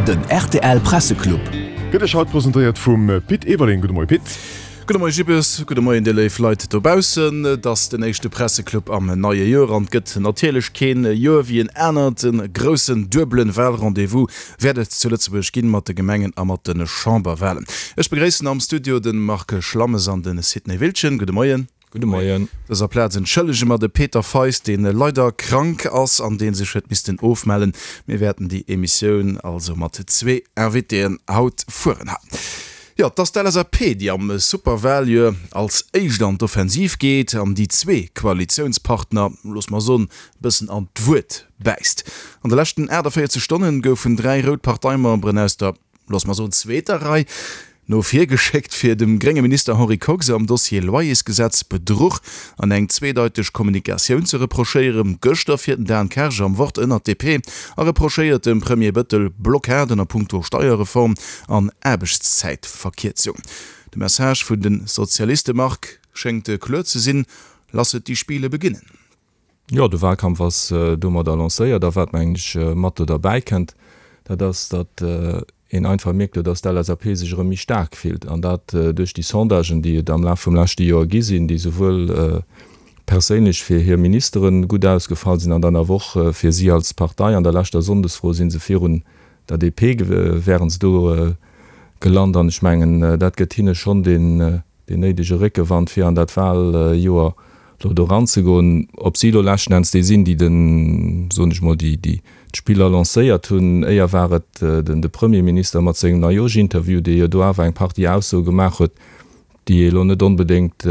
Den rtl Presseclub. Gëtt Iech haut presentéiert vum Pit Everling. Gudde Moie Pit. Gudde Moie Jibbes, gudde Moien dir léif Leit dobaussen. Et ass den éischte Presseclub am neie Joer an et gëtt natierlech keen Joer wéi en anert. E groussen duebelen Wahlrendez-vous wäert et zu Lëtzebuerg ginn, mat de Gemengen a mat de Chamberwahlen. Ech begréissen am Studio de Marc Schlammes an de Sidney Wiltgen. Gudde Moien. Gudde Moien. Op dëser Plaz entschëllege mer de Peter Feist, deen leider krank ass an deen sech huet missten ofmellen. Mir wäerten déi Emissioun also mat zwee Invitéen haut fueren. Jo, et ass d'LSAP, déi am Superwaljoer als éischt an d'Offensiv geet an déi zwee Koalitiounspartner, loosse mer soen, e bëssen an d'Wuert bäisst. An de leschten 48 Stonnen goufen 3 rout Parteimemberen aus der looss mer soen, zweeter Rei no vir geschéckt, fir dem grénge Minister Henri Kox am Dossier Loyersgesetz Bedruch an eng zweedeiteg Kommunikatioun ze reprochéieren. Gëschter fiert den Dan Kersch am Wort ënnert d'DP a reprochéiert dem Premier Bëttel Blockaden a punkto Steierreform an Aarbechtszäitverkierzung. De Message vun de Sozialiste, Marc, schéngt kloer ze sinn, Lasset die Spiele beginnen. Jo, de Wahlkampf ass domadder lancéiert. A wat, mengen ech, mat do derbäi kënnt, dat ass, datt een einfach mierkt elo, datt d'LSAP sech erëm méi staark fillt. An dat duerch déi Sondagen, déi et am Laf vum leschte Joer gi sinn, déi souwuel perséinlech fir hir Ministere gutt ausgefall sinn an dann awer och fir si als Partei. An der leschter Sonndesfro si se virun der DP wären se do gelant. An ech mengen, dat gëtt hinne schonn deen néidege Réckewand, fir an dat Wahljoer elo do eranzegoen. Ob si elo leschten Enns déi sinn, déi den, soen ech mol, déi déi d'Spiller lancéiert hunn, éier war et den de Premierminister mat sengem Neijoerschinterview, dee jo do awer eng Partie Aussoe gemaach huet, déi ee elo net onbedéngt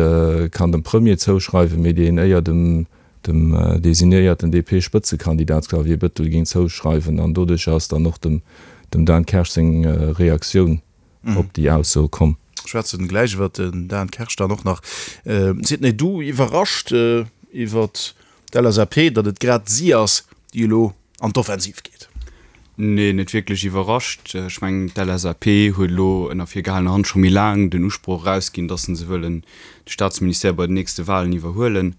kann dem Premier zouschreiwen, mee déi een éier dem dem designéierten DP-Spëtzekandidat Xavier Bettel géing zouschreiwen. An doduercher ass dann och dem dem Dan Kersch seng Reaktioun op déi Ausso komm. Schwätzen gläich iwwer den Dan Kersch dann och nach. Sidney, du iwwerrascht iwwer d'LSAP, datt et grad si ass, déi elo an d'Offensiv geet? Nee, net wierklech iwwerrascht. Ech mengen, d'LSAP huet elo ënner virgehalener Hand scho méi laang den Usproch erausginn, datt se wëllen de Staatsministère bei den nächste Walen iwwerhuelen.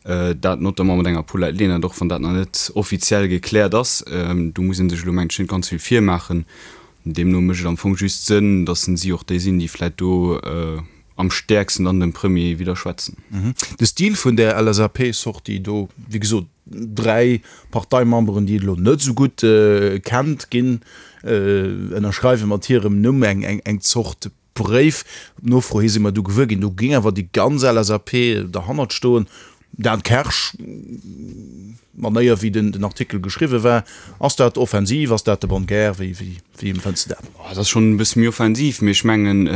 Dat notamment mat enger Paulette Lenert, och wann dat nach net offiziell gekläert ass. Do muss ee sech elo, mengen ech, net ganz vill virmaachen. Deemno mécht et am Fong just Sënn, datt si och déi sinn, déi vläit do am stäerksten dann dem Premier widderschwätzen. De Stil vun där LSAP-Sortie do, wéi gesot, dräi Parteimemberen, déi et elo net esou gutt kennt, ginn, ënnerschreiwe mat hirem Numm eng Zort Bréif. Op Nofro hi si mer du gewuer ginn, do géing awer déi ganz LSAP derhannert stoen. Dan Kersch, D'Manéier wéi den Artikel geschriwwe war, ass dat offensiv, ass dat de bonne guerre, wéi wéi empfënns de dat? Dat ass schonn e bësse méi offensiv, mee ech mengen,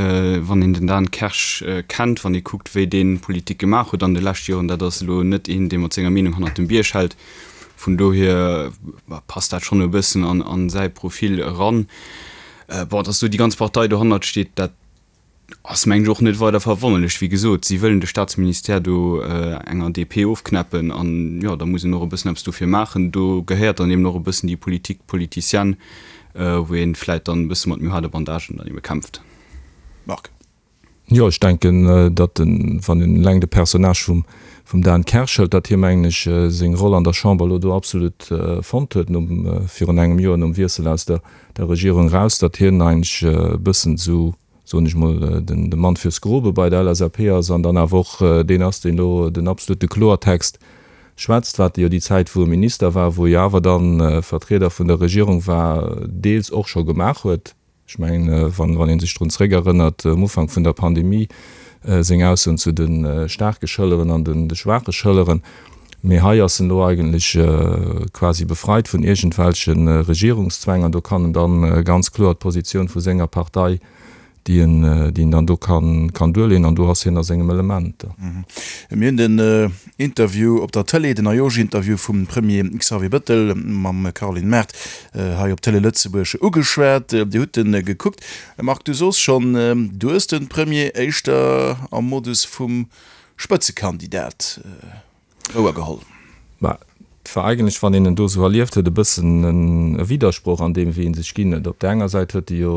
wann een den Dan Kersch kennt, wann ee kuckt wéi dee Politik gemaach huet an de leschte Joren, dat ass elo net een, dee mat senger Meenung hannert dem Bierg hält. Vun dohier passt dat schonn e bëssen an säi Profil eran. Bon, dass do déi ganz Partei dohannert steet, dat ass, mengen ech, och net weider verwonnerlech. Wéi gesot, si wëllen de Staatsministère do enger DP ofknäppen an, jo, da muss een och e bëssen eppes dofir maachen. Do gehéiert dann eben och e bëssen déi Politique politicienne, wou ee vläicht dann e bësse mat méi haarde Bandagen dann ebe kämpft. Marc. Jo, ech denken, datt en, wann een eleng de Personnage vum, vum Dan Kersch hëlt, datt hie, mengen ech, seng Roll an der Chamber elo do absolut fonnt huet nom, virun engem Joer, nom Wiessel aus der, der Regierung eraus, datt hien eigentlech e bëssen esou, soen ech mol, den, de Mann fürs Grobe bei der LSAP ass an dann awer och deen ass, deen elo den absolute Kloertext schwätzt, wat e jo déi Zäit, wou e Minister war, wou e jo awer dann Vertrieder vun der Regierung war, deels och scho gemaach huet. Ech mengen, wann ee sech drun zréckerënnert, um Ufank vun der Pandemie seng Aussoen zu de staarke Schëlleren an de schwaache Schëlleren. Mee hei ass en elo eigentlech quasi befreit vun iergendwelche Regierungszwäng an do kann en da ganz kloer d'Positioun vu senger Partei déi en, déi en dann do kann, kann duerleeën an do ass hien a sengem Element. Mir hunn den Interview op der Tëlee, den Ajosch-Interview vum Premier Xavier Bëttel mam Caroline Mart hei op Télé Lëtzebuerg ugeschwat. Dir hutt en gekuckt. Marc, du soos schonn, du hues de Premier éischter am Modus vum Spëtzekandidat wouer geholl. Mä et war eigentlech, wann een en do esou erlieft huet, e bëssen e Widdersproch an deem, wéi e sech ginn huet. Op där enger Säit huet e jo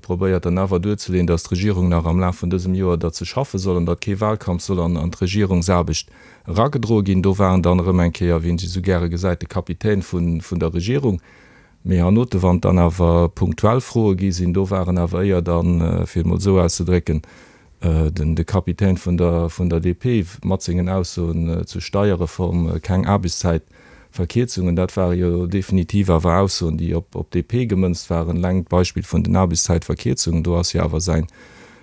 probéiert dann awer duerzeleeën, datt d'Regierung nach am Laf vun dësem Joer derzou schaffe soll an datt kee Wahlkampf soll an d'Regierungsaarbecht eragedroe ginn. Do war en dann erëm eng Kéier, wéi een sech esou gäre gesäit, de Kapitän vun der Regierung. Mee hernote wann dann awer punktuell Froe gi sinn, do waren awer éier dann, fir et mol esou auszedrécken, den de Kapitän vun der vun der DP mat sengen Aussoen zur Steierreform, keng Aarbechtszäitverkierzungen, dat ware jo definitiv awer Aussoen, déi op op d'DP gemënzt waren. Eleng d'Beispill vun den Aarbechtszäitverkierzungen, do ass jo awer säin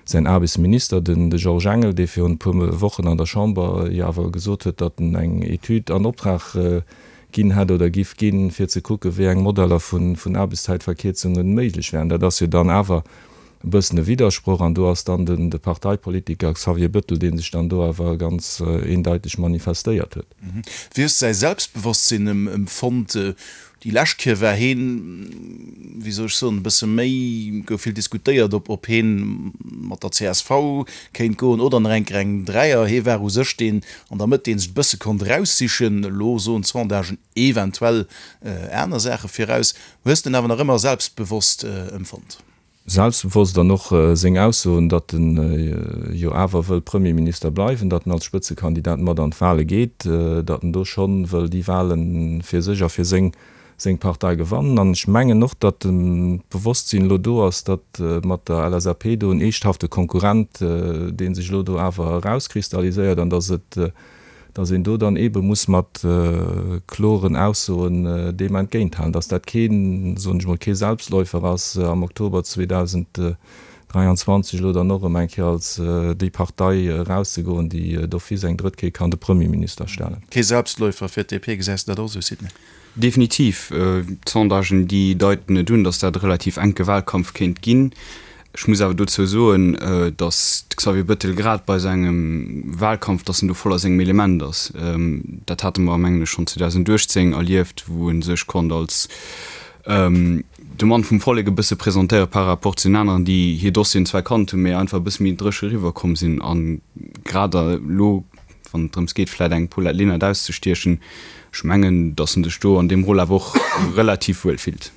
säin Aarbechtsminister, den de Georges Engel, dee virun e puer Wochen an der Chamber jo awer gesot huet, datt en eng Etüd an Optrag ginn hätt oder giff ginn, fir ze kucken, wéi eng Modeller vun vun Aarbechtszäitverkierzungen méiglech wären. Dat ass jo dann awer e bëssen e Widdersproch an do ass dann den de Parteipolitiker Xavier Bettel, dee sech dann do awer ganz eendeiteg manifestéiert huet. Wéi hues de säi Selbstbewosstsinn empfonnt? Déi lescht Kéier war heen, wéi soll ech soen, e bësse méi, gouf vill diskutéiert, ob ob heen mat der csv kéint goen oder nach eng Kéier eng Dräier. Hee war u sech deen an der Mëtt, dee sech e bësse konnt eraussichen. Elo soen d'Sondagen eventuell aner Saache viraus. Hues de en awer nach ëmmer selbstbewosst empfonnt? Selbstbewosst an och seng Aussoen, datt en jo awer wëll Premierminister bleiwen, datt en als Spëtzekandidat mat an d'Wale geet, datt en do schonn wëll déi Wale fir sech a fir seng seng Partei gewannen. An ech mengen och, datt d'Bewosstsinn elo do ass, datt mat der LSAP do en eeschthafte Konkurrent, dee sech elo do awer erauskristalliséiert an datt et dass een do dann eebe muss mat kloren Aussoen deem entgéinthalen, dass dat keen, soen ech mol, kee Selbstläufer ass, am Oktober 2023 elo dann och erëm eng Kéier als déi Partei erauszegoen, déi d'office eng drëtt Kéier kann de Premierminister stellen. Kee Selbstläufer fir d'DP, gesäis de dat och esou, Sidney? Definitiv. D'Sondagen, déi deiten et un, datt dat e relativ enke Wahlkampf kéint ginn. Ech muss awer dozou soen, datt de Xavier Bettel grad bei sengem Wahlkampf, datt en do voll a sengem Element ass. Dat hate mer, mengen ech, schonn 2018 erlieft, wou e sech konnt als de Mann vum Vollek e bësse presentéiere par rapport zu den aneren, déi hir Dossieren zwar kannt hunn, mee einfach e bësse méi dréche eriwwerkomm sinn. A grad elo wann et drëms geet, vläit eng Paulette Lenert auszestiechen, ech mengen, datt en sech do an deem Rôle awer och relativ wuel fillt.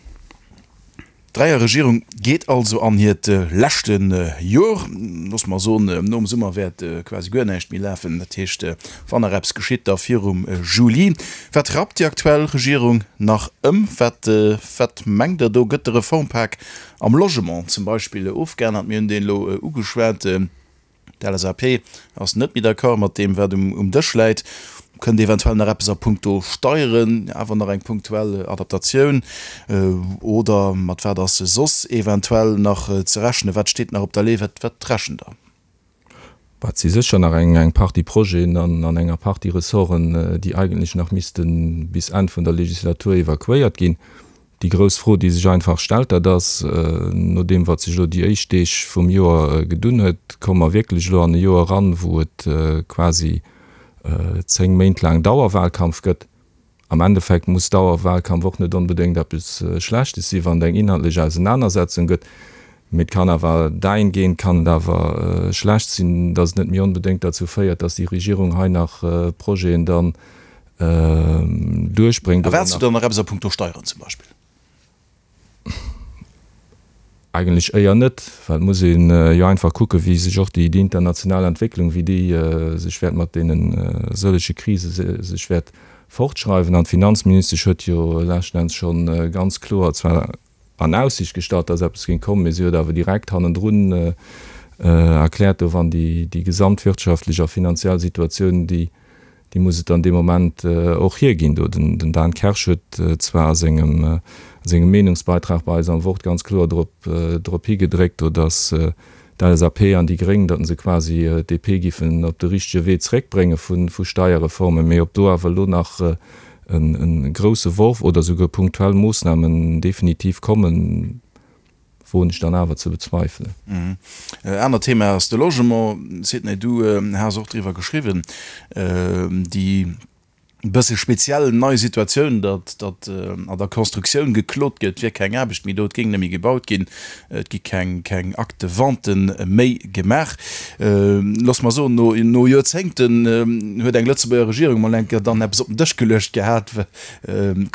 D'Dräierregierung geet also an hiert leschte Jor. Loosse mer soen, nom Summer wäert quasi guer näischt méi lafen. Dat heescht, wann nach eppes geschitt, da virum Juli. Wat rappt déi aktuell Regierung nach ëm? Wat, wat mengt Der do? Gëtt de Reformpak am Logement zum Beispill ofgeännert? Mir hunn deen elo ugeschwat. D'LSAP ass net méi d'accord mat deem, wat um Dësch läit. Kënnt eventuell nach eppes a puncto Steieren, awer nach eng punktuell Adaptatioun? Oder mat wat ass soss eventuell nach ze rechnen? Wat steet nach op der Lee? Wat rechent Der? Et si sécher nach eng Partie Projeten an enger Partie Ressorten, déi eigentlech nach misste bis Enn vun der Legislatur evakuéiert ginn. Déi grouss Fro, déi sech einfach stellt, dat ass, no deem wat sech elo déi éischt Deeg vum Joer gedunn huet, komme mer wierklech elo an e Joer eran, wou et quasi 10 Méint laang Dauerwahlkampf gëtt? Am Endeffekt muss Dauerwahlkampf och net onbedéngt eppes Schlechtes sinn, wann et eng inhaltlech Ausenanersetzung gëtt. Mee et kann awer dahingehend kann et awer schlecht sinn, datt et net méi onbedéngt derzou féiert, datt déi Regierung hei nach Projeten dann duerchbréngt. Erwaarts du dann nach eppes a puncto Steieren zum Beispill? Eigentlech éier net, well et muss ee jo einfach kucken, wéi sech och déi international Entwécklung, wéi déi sech wäert mat deene sëllege Krise sech wäert fortschreiwen. An d'Finanzministesch huet jo leschten Enns scho ganz kloer zwar an Aussicht gestallt, dass eppes géing kommen, mee si huet awer direkt hannendrun erkläert, do wann déi gesamtwirtschaftlech a finanziell Situatioun, déi déi muss et dann dee Moment och hierginn. Do den Dan Kersch huet zwar a sengem sengem Meenungsbeitrag bei eis am Wort ganz kloer drop drop higedréckt, do datt d'LSAP an déi Gréng, datt se quasi d'DP giffen op de richtege Wee zréckbrénge vu vu Steierreformen, mee ob do awer elo nach e grousse Worf oder souguer punktuell Moossnamen definitiv kommen, woen ech dann awer ze bezweifelen. Anert Thema ass de Logement. Sidney, du has och driwwer geschriwwen, déi bësse speziell nei Situatioun, datt datt an der Constructioun geklot gëtt, et wier keng Aarbecht méi do, et géing net méi gebaut ginn, et gi keng keng Acte de vente méi gemaach. Looss mer soen, no no Joerzéngten huet eng Lëtzebuerger Regierung mol eng Kéier dann eppes op den Dësch geluecht gehat,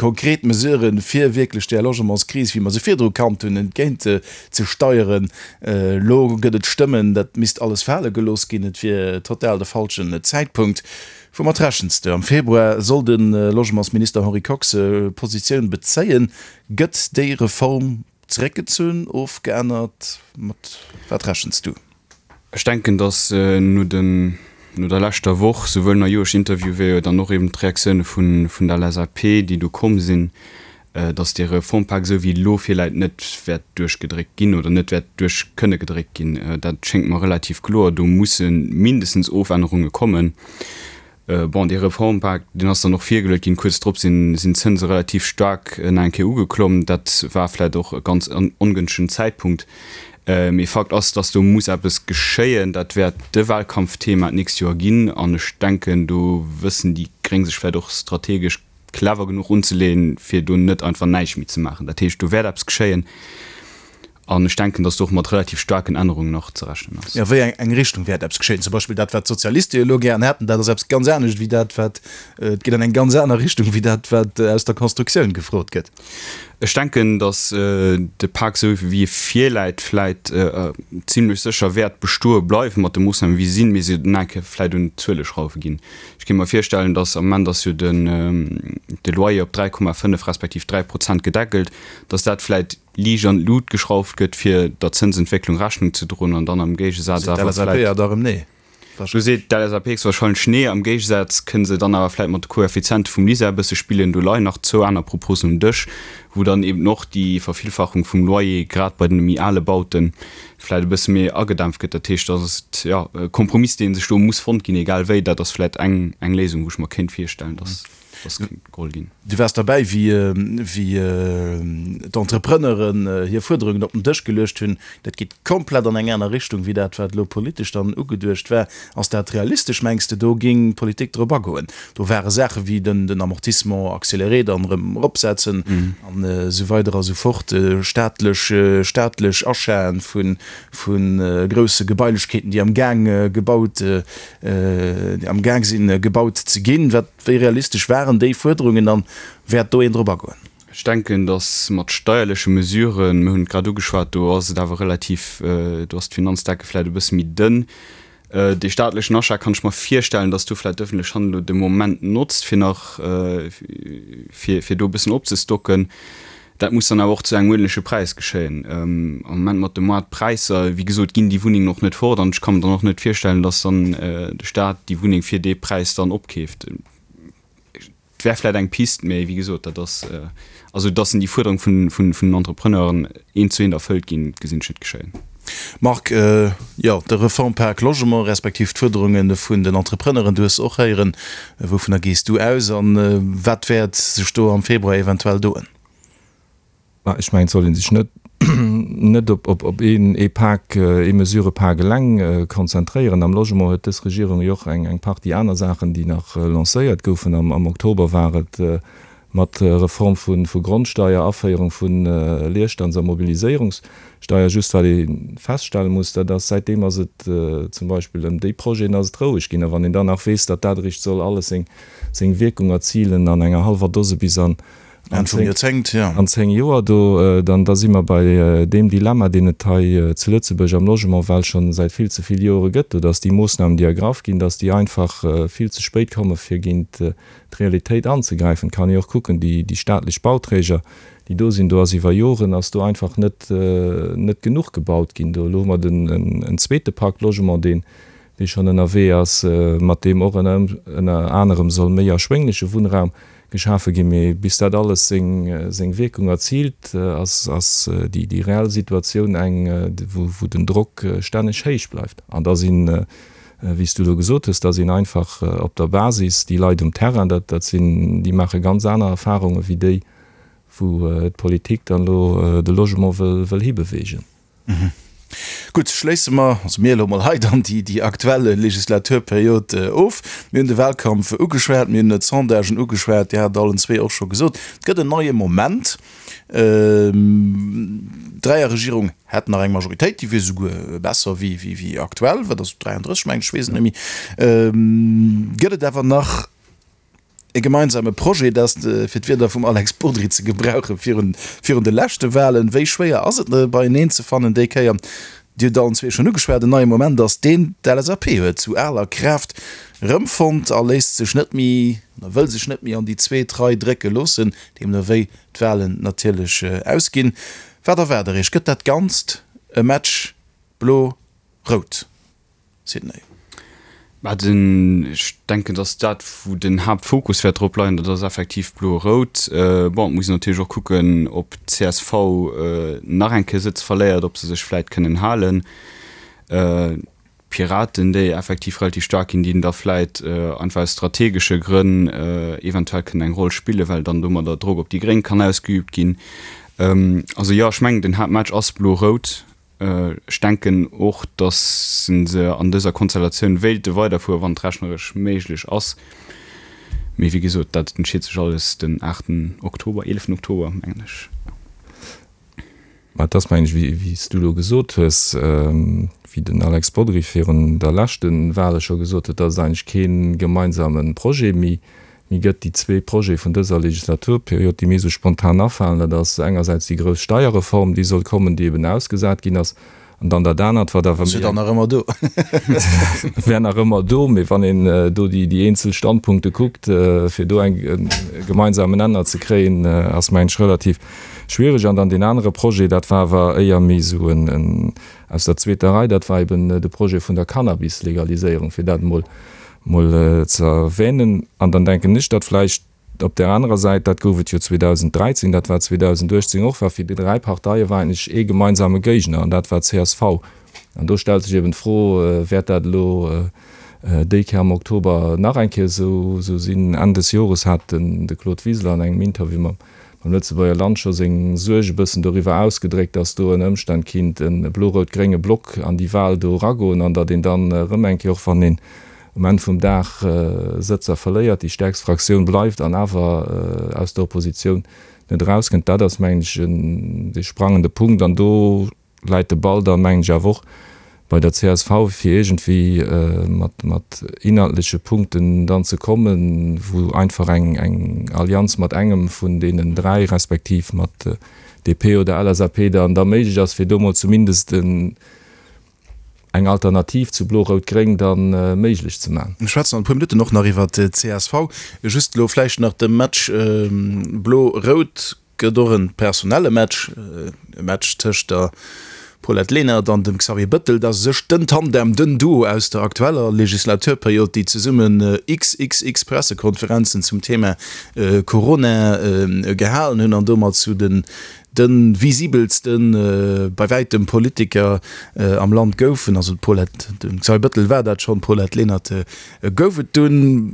Konkret Mesuren, fir wierklech där Logementskris, wéi mer se virdru kannt hunn, entgéint ze steieren. Elo gëtt et Stëmmen, dat misst alles fale gelooss ginn, et wier total de falschen Zäitpunkt. Woumat rechens de? Am Februar soll de Logementsminister Henri Kox Positioun bezéien. Gëtt déi Reform zeréckgezunn, ofgeännert? Mat wat rechens du? Ech denken, datt no den, no der leschter Woch, souwuel Majoersch Interview wéi jo dann och eben d'Reaktioune vun der LSAP, déi do komm sinn, datt dee Reformpak esou wéi elo virläit net wäert duerchgedréckt ginn oder net wäert duerch kënne gedréckt ginn. Dat schéngt mer relativ kloer. Do musse mindestens Ofännerunge kommen. Bon, dee Reformpak, deen ass dann och virgeluet ginn. Kuerz drop sinn d'Zënse relativ staark nach eng Kéier ugeklomm. Dat war vläicht och e ganz ongënschtegen Zäitpunkt. Mee Fakt ass, datt do muss eppes geschéien. Dat wäert de Wahlkampfthema d'nächst Joer ginn. An ech denken, do wëssen déi Gréng sech vläicht och strategesch clever genuch unzeleeën, fir do net einfach näischt méi ze maachen. Dat heescht, do wäert eppes geschéien an ech denken, datt do och mat relativ staarken Ännerungen nach ze rechnen ass. Jo, wéi eng eng Richtung wäert eppes geschéien? Zum Beispill dat, wat d'Sozialiste jo elo gären hätten, dat ass eppes ganz anescht wéi dat, wat, et geet an eng ganz aner Richtung wéi dat, wat aus der Constructioun gefrot gëtt. Ech denken, datt de Pak, esou wéi e virläit, vläit zimlech sécher wäert bestoe bleiwen, mat de Moossnamen, wéi se sinn, mee se nach eng Kéier vläit un d'Zuele schrauwe ginn. Ech kéint mer virstellen, dass am Moment ass jo den de Loyer op 3,5 respektiv 3 Prozent gedeckelt, dass dat vläit liicht an d'Lut geschrauft gëtt, fir der Zënsentwécklung Rechnung ze droen an dann am Géigesaz awer vläit. Do seet d'LSAP héchstwahrscheinlech nee. Am Géigesaz kënne se dann awer vläit mat de Koeffiziente vum LISER e bësse spillen. Do leien nach zwou aner Proposen um Dësch, wou dann eben och déi Vervillfachung vum Loyer grad bei den méi ale Bauten vläit e bësse méi agedämpft gëtt. Dat heescht, dat ass, jo, e Kompromiss, dee sech do muss fonnt ginn, egal wéi. Dat ass vläit eng, eng Léisung, wou ech mer kéint virstellen, dass dass kéint geholl ginn. Du waars derbäi, wéi, wéi d'Entrepreneuren hir Fuerderungen op den Dësch geluecht hunn. Dat geet komplett an eng aner Richtung wéi dat, wat elo politesch dann ugeduecht war. Ass dat realistesch, mengs de, do géing d'Politik drop agoen? Do ware Saache wéi den, den Amortissement accéléré dann erëm eropsetzen an esou weider a sou fort, staatlech, staatlech Achaten vu, vu grousse Gebailechkeeten, déi am Gaang gebaut, déi am Gaang sinn gebaut ze ginn. Wat, wéi realistesch waren déi Fuerderungen an wäert do een drop agoen? Ech denken, datt mat steierleche Mesuren, mir hunn et grad ugeschwat, do ass et awer relativ, do ass d'Finanzdecke vläicht e bësse méi dënn. Dee staatlechen Achat kann ech mer virstellen, datt do vläicht d'ëffentlech Hand elo de Moment notzt, fir nach, fir, fir do e bëssen opzestocken. Dat muss dann awer och zu engem uerdentleche Präis geschéien. Am Moment mat de Moartpräisser, wéi gesot, ginn déi Wunnengen och net fort an ech ka mer dann och net virstellen, datt dann de Staat déi Wunneng fir dee Präis dann opkeeft. Et wär vläit eng Pist, mä wéi gesot, dat ass, also datt déi Fuerderung vun, vun, vun den Entrepreneuren eent zu eent erfëllt ginn, gesinn ech net geschéien. Marc, jo, de Reformpak Logement, respektiv d'Fuerderunge vun den Entrepreneuren, du hues se och héieren. Wouvunner gees du aus a wat wäert sech do am Februar eventuell doen? Mä ech mengen, et soll ee sech net net op op een ee Pak, ee Mesurëpak eleng konzentréieren. Am Logement huet dës Regierung jo och eng eng Partie aner Saachen, déi nach lancéiert goufen. Am am Oktober war et mat Reform vu vu Grondsteier, Aféierung vu Leerstands a Mobiliséierungssteier. Just wat ee feststelle muss, dat ass, säitdeem ass et zum Beispill ëm déi Projeten ass et roueg ginn. A wann een dann nach weess, datt dat eréischt soll alles seng seng Wierkung erzilen an enger hallwer Dose bis an Enn vum Joerzéngt, jo. An 10 Joer, do, dann, da si mer bei deem Dilemma, deen et hei zu Lëtzebuerg am Logement well scho säit vill ze vill Joere gëtt, do dass déi Moossnamen, déi ergraff ginn, dass déi einfach vill ze spéit komme fir géint d'Realitéit anzegräifen. Et kann ee och kucken, déi, déi staatlech Bauträger, déi do sinn, do ass iwwer Joren ass do einfach net, net genuch gebaut ginn. Do elo hu mer den, en zweete Pacte Logement, deen, dee schonn ënnerwee ass, mat deem och ënner, ënner anerem soll méi erschwéngleche Wunnraum geschafe ginn. Mee bis dat alles seng, seng Wierkung erziilt, ass, ass déi, déi reell Situatioun eng, wou, wou den Drock stänneg héich bleift. An da sinn, wéi s du elo gesot hues, da sinn einfach op der Basis déi Leit um Terrain, dat, dat sinn, déi maache ganz aner Erfarunge wéi déi, wou d'Politik dann elo de Logement wëll, wëll hibewegen. Gutt, schléisse mer, also mir elo mol hei dann déi, déi aktuell Legislaturperiod of. Mir hunn de Wahlkampf ugeschwat, mir hunn d'Sondagen ugeschwat, Dir hat et allen zwee och scho gesot, et gëtt en neie Moment. D'Dräierregierung hätt nach eng Majoritéit, déi wier souguer besser wéi, wéi, wéi aktuell, wat ass 33 mengen ech, ech weess et net méi. Gëtt et awer nach E gemeinsame Projet, dat, fir d'Wierder vum Alex Bodry ze gebrauchen, virun, virun de leschte Wahlen. Wéi schwéier ass et, beieneen ze fannen déi Kéier? Dir hutt allen zwee schonn ugeschwat, en neie Moment ass deen d'LSAP huet zu aler Kraaft. rëmfonnt a léisst sech net méi, oder wëll sech net méi an déi zweet Rei drécke loossen, deemno wéi d'Walen natierlech ausginn. Wat erwaart der Iech? Gëtt dat Ganzt e Match Blo-Rout? Sidney. Mä den, ech denken, datt dat, wou den Haaptfokus wäert drop leien, dat ass effektiv Blo-Rout. Bon, et muss een natierlech och kucken, ob d'CSV nach eng Kéier Sëtz verléiert, ob se sech vläit kënnen halen. D'Piraten, déi effektiv relativ staark ginn, déi da vläit einfach aus strategesche Grënn eventuell kënnen eng Roll spillen, well dann domadder Drock op déi Gréng kann ausgeübt ginn. Also jo, ech mengen, den Haaptmatch ass Blo-Rout. Ech denken och, datt se an dëser Konstellatioun wéilte weiderfueren, wann et rechneresch méiglech ass. Mee wéi gesot, dat entscheet sech alles den aachten Oktober, eeleften Oktober, mengen ech. Mä et ass, mengen ech, wéi s du elo gesot hues, wéi den Alex Bodry virun der leschte Wahle scho gesot huet, datt et eigentlech kee gemeinsame Projet méi méi gëtt. Déi zwee Projete vun dëser Legislaturperiod, déi mir esou spontan afalen, dat ass engersäits déi grouss Steierreform, déi soll kommen, déi eben ausgesat ginn ass, an dann dat anert, wat awer méi eng. Ass jo dann nach ëmmer do. Wär nach ëmmer do, mee wann een do déi eenzel Standpunkte kuckt, fir do eng e gemeinsamen Nenner ze kréien, ass, mengen ech, relativ schwierig. An dann deen anere Projet, dat war awer éier méi esou en aus der zweeter Rei, dat war eben de Projet vun der Cannabis-Legaliséierung, fir dat emol mol ze erwähnen. An dann denken ech, datt vläicht op där anerer Säit, dat gouf et jo 2013, dat war 2018 och, war fir déi dräi Parteie war eigentlech ee gemeinsame Géigner, an dat war csv. An do stellt sech eben d'Fro, Wäert dat elo déi Kéier am Oktober nach eng Kéier esou sinn? Enn des Jores hat den de Claude Wiseler an engem Interview mam Lëtzebuerger Land scho seng Suerg e bëssen doriwwer ausgedréckt, datt do ënner Ëmstänn kinnt e blo-rout-grénge Block an déi Wahl do eragoen an datt een dann erëm eng Kéier, och wann een um Enn vum Dag Sëtzer verléiert, déi stäerkst Fraktioun bleift an awer aus der Oppositioun net erauskënnt. Dat ass, mengen ech, de sprangende Punkt. An do läit de Ball dann, mengen ech, awer och bei der csv, fir iergendwéi mat inhaltleche Punkten dann ze kommen, wou einfach eng Allianz mat engem vun deenen dräi respektiv mat DP oder LSAP dann da méiglech ass, fir do mol zumindest en eng Alternativ zu Blo-Rout-Gréng da méiglech ze man. Mir schwätzen an e puer Minutten och nach iwwer d'CSV. Just elo vläicht nach de Match Blo-Rout gëtt och e personelle Match, e Match tëscht der Paulette Lenert an dem Xavier Bëttel. Dat ass u sech den Tandem, den Duo aus der aktueller Legislaturperiod, déi zesummen xxx Pressekonferenzen zum Thema Corona gehalen hunn an domat zu den de visibelste bei wäitem Politiker am Land goufen, also d'Paulette, de Xavier Bëttel war dat schonn, d'Paulette Lenert gouf et dunn.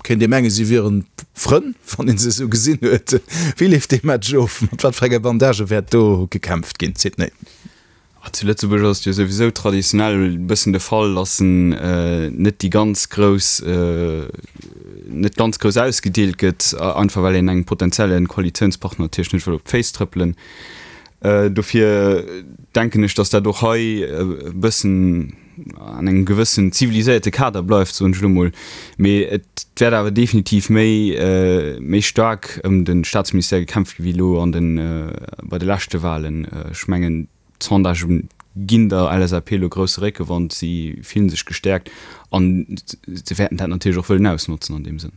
Kéint ee mengen, si wieren Frënn, wann ee se esou gesinn huet. Wéi leeft dee Match of? Mat wat fir enge Bandagë wäert do gekämpft ginn, Sidney? Zu Lëtzebuerg ass et jo souwisou traditionell e bëssen de Fall, datt en net déi ganz grouss, net ganz grouss ausgedeelt gëtt, einfach well een engem potenzielle Koalitiounspartner natierlech net wëll op d'Féiss trëppelen. Dofir denken ech, datt dat och hei e bëssen an engem gewëssen ziviliséierte Kader bleift, soen ech elo mol. Mee et wäert awer definitiv méi, méi staark ëm de Staatsministère gekämpft gi wéi elo an de, bei de leschte Wahlen. Ech mengen, D'Sondagen ginn der LSAP elo grousse Réckewand, si fillen sech gestäerkt an se wäerten dat natierlech och wëllen ausnotzen an deem Sënn.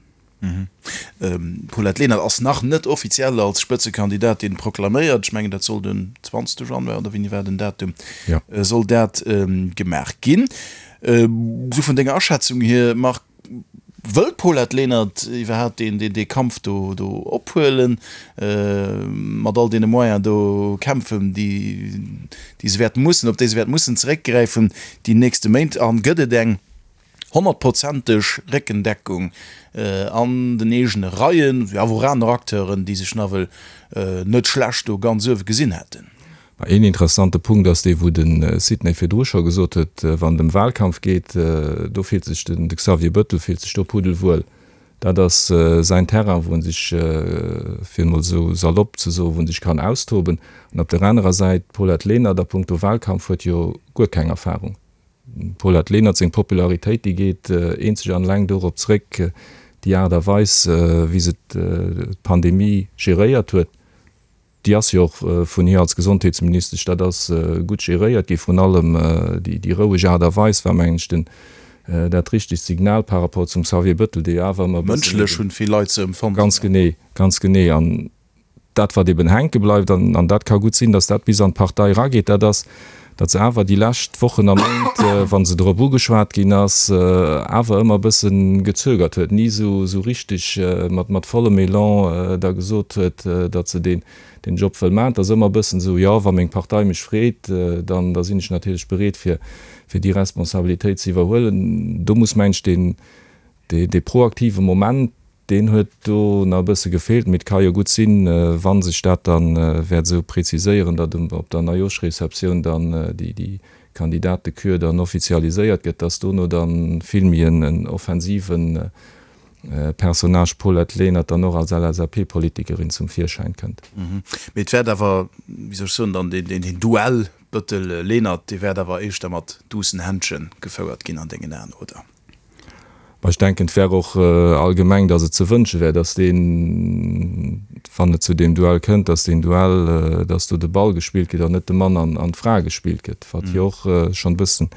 D'Paulette Lenert ass nach net offiziell als Spëtzekandidatin proklaméiert. Ech mengen, dat soll den 20 Januar, oder wéini war den Datum, soll dat gemaach ginn. Esou vun denger Aschätzung hier, Marc, Wëll d'Paulette Lenert iwwerhaapt deen dee Kampf do do ophuelen, mat all deene Moyenen do kämpfen, déi déi se wäert mussen, op déi se wäert mussen zeréckgräifen déi nächste Méint? An gëtt et eng honnertprozenteg Réckendeckung an den eegene Reien, wéi awer och aner Acteuren, déi sech nawell net schlecht do ganz uewe gesinn hätten? Ma een interessante Punkt ass dee wou de Sidney virdru scho gesot huet, wann et ëm Wahlkampf geet, do fillt sech den de Xavier Bëttel fillt sech do puddelwuel. Dat ass säin Terrain, wou en sech, fir emol esou salopp ze soen, wou en sech kann austoben. An op der anerer Säit, d'Paulette Lenert a punkto Wahlkampf huet jo guer keng Erfahrung. D'Paulette Lenert seng Popularitéit, déi geet eenzeg an eleng dorop zréck, déi Aart a Weis wéi se d'Pandemie geréiert huet. Déi ass jo och vun hir als Gesondheetsministesch, dat ass gutt geréiert gi, vrun allem déi roueg Aart a Weis war, mengen ech, den. dat richtegt Signal par rapport zum Xavier Bëttel, dee jo awer ëmmer e bëssen. Mënschlech hunn vill Leit se empfonnt. Ganz genee, ganz genee. An dat, wat eben hänke bleift, an an dat ka gutt sinn, datt dat bis an d'Partei erageet, dat ass, datt se awer déi lescht Wochen a Méint, wa se drop ugeschwat ginn ass, awer ëmmer e bësse gezögert huet, ni esou esou richteg mat mat vollem Elan da gesot huet, datt se deen deen Job wëll maachen. Et ass ëmmer e bëssen esou, jo, wa meng Partei mech freet, dann da sinn ech natierlech bereet fir fir déi Responsabilitéit ze iwwerhuelen. Do muss, meng ech, deen dee proaktive Moment, deen huet do nach e bësse gefeelt. Mee et ka jo gutt sinn, wa sech dat da wäert esou preziséieren, datt op der Neijoschreceptioun dann déi Kandidatekür dann offizialiséiert gëtt, datt dono da vill méi en offensive Personnage Paulette Lenert dann och als LSAP-Politikerin zum Virschäin kënnt. Mee et wäert awer, wéi soll ech soen, dann deen Duell Bëttel-Lenert, dee wäert awer éischter mat duussen Händche gefouert ginn an dengen Aen, oder? Mä ech denken, et wär och allgemeng, datt et ze wënsche wär, datt deen, wann et zu deem Duell kënnt, datt deen Duell, datt do de Ball gespillt gëtt an net de Mann an d'Fra gespillt gëtt, wat jo och schonn e bëssen,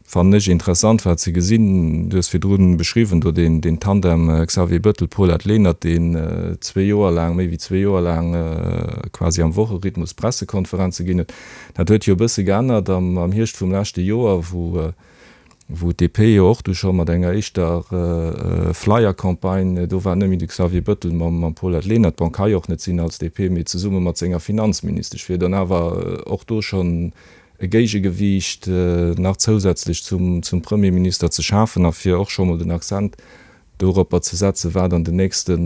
fannen ech, interessant war ze gesinn. Du hues virdru beschriwwen do deen Tandem Xavier Bëttel, Paulette Lenert, deen zwee Joer laang, méi wéi zwee Joer laang quasi am Wocherhythmus Pressekonferenze ginn huet. Dat huet jo e bësse geännert am Hierscht vum leschte Joer, wou wou d'DP jo och du scho mat enger éischter Flyer-Campagne, do war net méi de Xavier Bëttel mam Paulette Lenert, bon ka jo och net sinn als DP, mee zesumme mat senger Finanzministesch, fir dann awer och do schonn e Géigegewiicht nach zousätzlech zum Premierminister ze schafen a fir och scho mol den Accent doropper ze setzen, wat an den nächste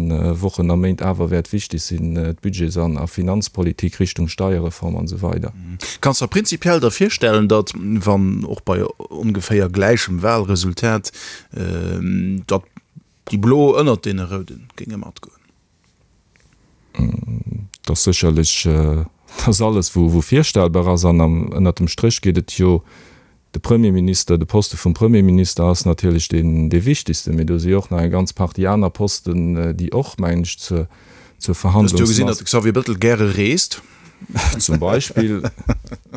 Wochen a Méint awer wäert wichteg sinn, d'Budgets an a Finanzpolitik Richtung Steierreform an esou weider. Kanns der prinzipiell der virstellen, datt, wann och bei ongeféier gläichem Wahlresultat, datt déi Blo ënnert deene Roude géinge matgoen? Et ass sécherlech, et ass alles wou virstellbar ass an ënnert dem Stréch geet et jo, de Premierminister, de Poste vum Premierminister ass natierlech deen dee wichtegsten, mee do si jo och nach eng ganz Partie aner Posten, déi och, mengen ech, zur zur Hues du jo gesinn, datt de Xavier Bettel gäre reest. Zum Beispill.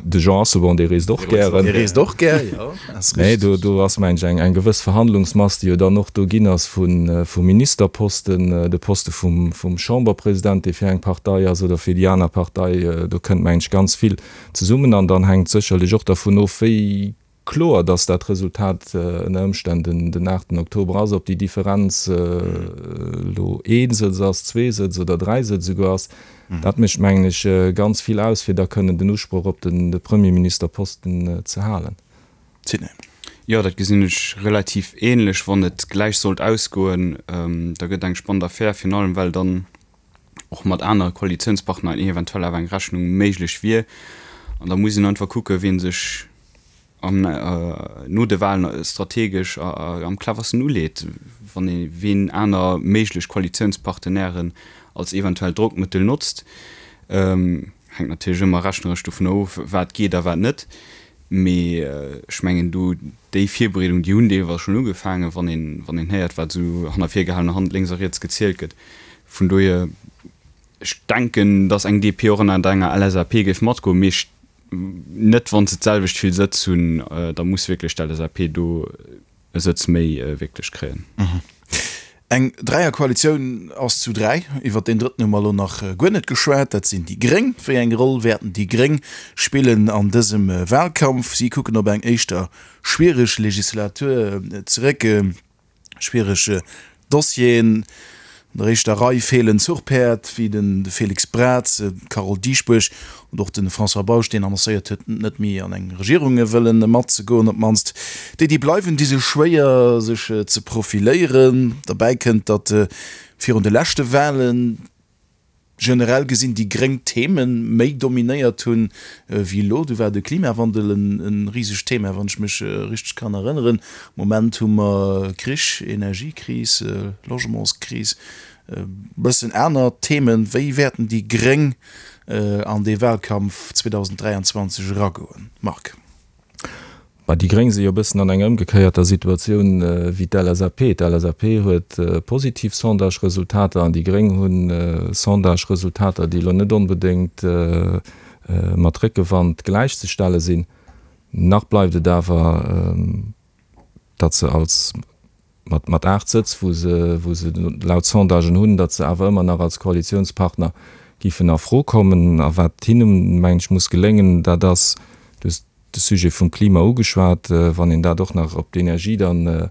De Jean Asselborn, dee reest och gären. Dee reest och gär, jo. Nee, do, do ass, mengen ech, eng, eng gewëss Verhandlungsmass, déi jo dann och do ginn ass vu, vu Ministerposten, de Poste vum, vum Chamberpresident, dee fir eng Partei ass oder fir déi aner Partei. Do kënnt, mengen ech, ganz vill zesummen. An dann hänkt sécherlech och dervun of, wéi Kloer, datt dat Resultat ënner Ëmstänn den aachten Oktober ass. Ob déi Differenz elo ee Sëtz ass, zwee Sëtz oder dräi Sëtz esouguer ass, dat mécht, mengen ech, ganz vill aus, fir da kënnen den Usproch op de Premierministerposten ze halen. Sidney. Jo, dat gesinn ech relativ ähnlech. Wann et gläich sollt ausgoen, da gëtt eng spannend Affär, virun allem well dann och mat anere Koalitiounspartner eventuell awer eng Rechnung méiglech wier. An da muss een einfach kucken, wien sech am no de Wahlen strategesch am cleversten uleet, wann ee wien aner méiglech Koalitiounspartenairen als eventuellt Drockmëttel notzt. Hänkt natierlech ëmmer rechneresch dovun of, wat geet a wat net. Mee ech mengen do déi Virbereedung, déi hunn deelweis schonn ugefaangen, wann een wann een héiert, wat esou hanner virgehalener Hand lénks a riets gezielt gëtt. Vun dohier, ech denken, datt eng DP och ënner enger LSAP géif matgoen, mee ech net wann se d'selwecht vill Sëtz hunn, da muss wierklech d'LSAP do e Sëtz méi wierklech kréien. Eng Dräierkoalitioun ass zu 3. Iwwer deen drëtten hu mer elo nach guer net geschwat, dat sinn déi Gréng. Wéi eng Roll wäerten déi Gréng spillen an dësem Wahlkampf? Si kucken op eng éischter schwiereg Legislatur zeréck. Schwiereg Dossieren. An der éischter Rei feelen Zuchpäerd wéi de Félix Braz, d'Carole Dieschbourg und och de François Bausch, deen annoncéiert huet, net méi an eng Regierung wëllen matzegoen. Op d'mannst déi, déi bleiwen, di sech schwéier, sech ze profiléieren. Derbäi kënnt, datt virun de leschte Walen, generell gesinn déi gréng Theme méi dominéiert hunn wéi elo. Du war de Klimawandel e risegt Thema, wann ech mech richteg kann erënneren. Am Moment hu mer Krich, Energiekris, Logementskris, e bëssen aner Themen. Wéi wäerten déi gréng an dee Wahlkampf 2023 eragoen, Marc? Bah, déi Gréng si jo e bëssen an enger ëmgekéierter Situatioun wéi d'LSAP. D'LSAP huet positiv Sondage-Resultater an déi Gréng hu Sondage-Resultater, déi elo net onbedéngt mat Réckewand gläichzestelle sinn. Nach bleift et awer. datt se als, mat, mat 8 Sëtz, wou se, wou se laut Sondagen hunn, datt se awer ëmmer nach als Koalitiounspartner giffen a Fro kommen. A wat hinnen, mengen ech, muss geléngen, dat ass, du hues de Sujet vum Klima ugeschwat, wann een dat och nach op d'Energie dann,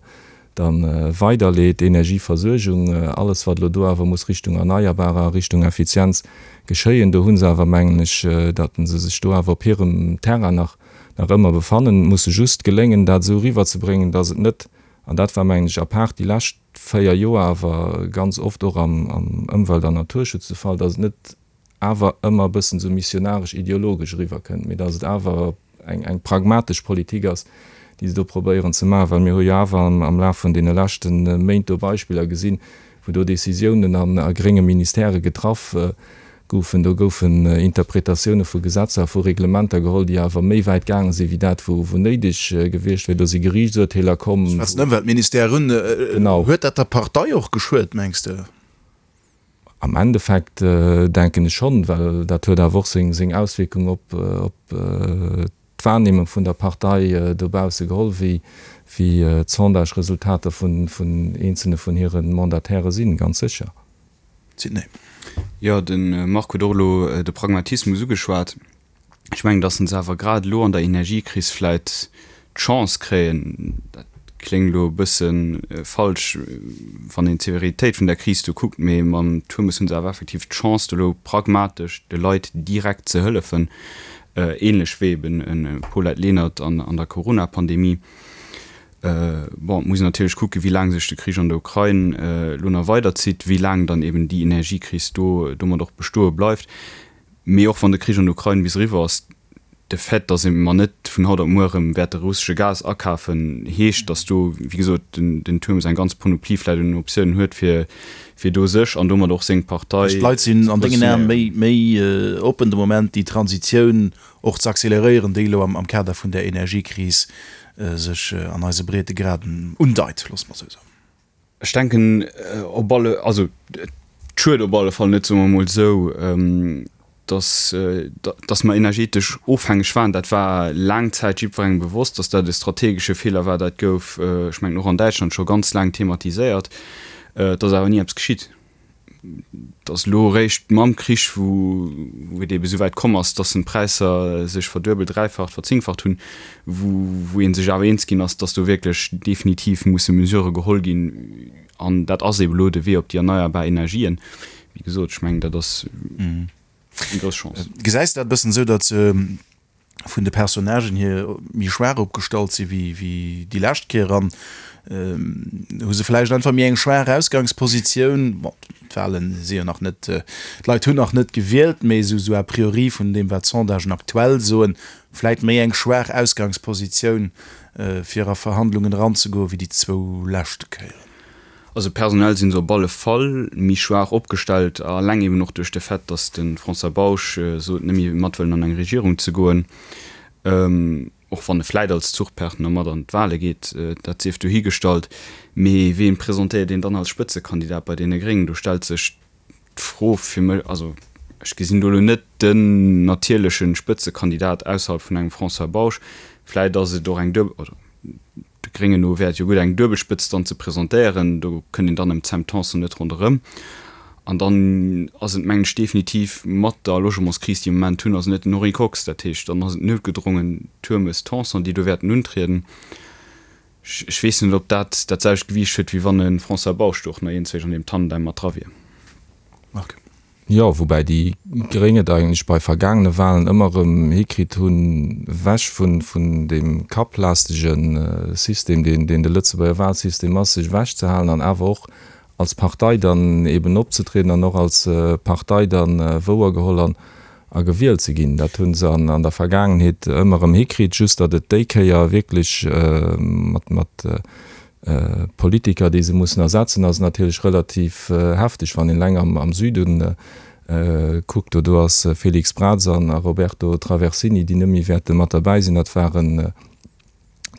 dann weiderleet, Energieversuergung, alles wat elo do awer muss Richtung Erneierbarer a Richtung Effizienz geschéien, do hu se awer, mengen ech, datt se sech do awer op hirem Terrain nach, nach ëmmer befannen. Et muss se just geléngen, dat esou eriwwerzebréngen, datt et net, an dat war, mengen ech, apaart déi lescht 4 Joer awer ganz oft och am, am Ëmwelt an Naturschutz de Fall, datt et net awer ëmmer e bëssen esou missionaresch ideologesch eriwwerkënnt, mee datt et awer eng, eng pragmatesch Politik ass, déi se do probéieren ze maachen. Well mir hu jo awer am, am Laf vun deene leschte Méint do Beispiller gesinn, wou do Décisiounen an a grénge Ministèrë getraff goufen. Do goufen Interpretatioune vu Gesetzer a vu Reglementer geholl, déi awer méi wäit gaange sinn, wéi dat, wou, wou néideg gewiescht wier. Do si Geriichtsurteeler komm. Ech schwätzen Ëmweltministère un. Genau. Huet dat der Partei och geschuet, mengs de? Am Endeffekt denken ech schonn, well dat huet awer och seng Auswierkung op d'Wahrnehmung vun der Partei dobausse geholl, wéi d'Sondage-Resultater vun eenzelne vun hire Mandataire sinn, ganz sécher. Sidney. Jo, de Marc huet och elo de Pragmatismus ugeschwat. Ech mengen, datt se awer grad elo an der Energiekris vläit d'Chance kréien, dat kléngt elo e bësse falsch, wann een d'Severitéit vun der Kris do kuckt, mee mam Turmes hu se awer effektiv d'Chance, do elo pragmatesch de Leit direkt ze hëllefen, ähnlech wéi eben e Paulette Lenert an der Corona-Pandemie. Bon, et muss een natierlech kucken, wéi laang sech de Krich an der Ukrain elo nach weiderzitt, wéi laang dann eben déi Energiekris do domat och bestoe bleift. Mee och wann de Krich an der Ukrain bis eriwwer ass, de Fait, datt mer net vun haut op muer erëm wäerte russesche Gas akafen, heescht, datt do, wéi gesot, den Turmes eng ganz Panoplie vläicht un Optiounen huet, fir fir do sech an domat och seng Partei ze D'Leit sinn an dengen Aen méi méi oppen de Moment, déi Transitioun och ze acceleréieren, déi elo am Kader vun där Energiekris sech an eise Breetegraden undeit, loosse mer esou soen. Ech denken op alle, also et schued op alle Fall net, soe mer emol esou, datt, datt mer energetesch ofhängeg waren. Dat war laang Zäit jiddwerengem bewosst, datt dat e strategesche Feeler war. Dat gouf, ech mengen och an Däitschland, scho ganz laang thematiséiert. Et ass awer ni eppes geschitt. Et ass elo eréischt mam Krich, wou et eebe souwäit komm ass, dass d'Präisser sech verduebelt, dräifacht, verzéngfacht hunn, wou ee sech awer eens ginn ass, dass do wierklech definitiv musse Mesurë geholl ginn. An dat ass eebe elo de Wee op déi erneierbar Energien. Wéi gesot, ech mengen, dat ass eng grouss Chance. Gesäis de dat e bëssen esou, datt vun de Personnagen hier méi schwaach opgestallt si wéi déi lescht Kéier an hu se vläicht einfach méi eng schwaach Ausgangspositioun. Bon, d'Wahlen si jo nach net, d'Leit hunn nach net gewielt, mee esou esou a priori vun deem wat d'Sondagen aktuell soen, vläicht méi eng schwaach Ausgangspositioun fir a Verhandlungen eranzegoen wéi déi zwou leschte Kéieren. Also personell si se op alle Fall méi schwaach opgestellt, alleng eben och duerch de Fait, datt de François Bausch sot, net méi mat wëllen an eng Regierung ze goen, och wann e vläit als Zuchpartner mat an d'Wale geet, dat sief dohigestallt. Mee ween presentéiert een dann als Spëtzekandidat bei deene Gréngen? Do stellt sech d'Fro fir mech, also ech gesinn do elo net den natierleche Spëtzekandidat ausserhalb vun engem François Bausch. Vläit ass et och eng duebel, oder De Gréngen no wär et jo gutt, eng Duebelspëtzt dann ze presentéieren. Do kënnt een dann ëm d'Sam Tanson net ronderëm. An dann ass et, mengen ech, definitiv mat der Logementskris, déi mir am Moment hunn, ass et net den Henri Kox. Dat heescht, dann ass et noutgedrongen Turmes-Tanson, déi do wäerten untrieden. Ech weess net, ob dat dat selwecht Gewiicht huet, wéi wann e François Bausch do och nach iergendzwéi an deem Tandem mat dra wier. Marc. Jo, woubäi déi Gréng et eigentlech bei vergaangene Wahlen ëmmer erëm hikritt hunn, ewech vun deem kapplastege System, deen de Lëtzebuerger Wahlsystem ass, sech ewechzehalen an awer och als Partei dann eben opzetrieden an och als Partei dann wouergeholl an a gewielt ze ginn. Dat hu se an der Vergaangenheet ëmmer erëm hikritt, just datt et déi Kéier wierklech mat Politiker, déi se mussen ersetzen, ass natierlech relativ hefteg, wann een eleng am Süden kuckt. Do do ass Félix Braz an a Roberto Traversini, déi net méi wäerte mat derbäi sinn. Dat waren,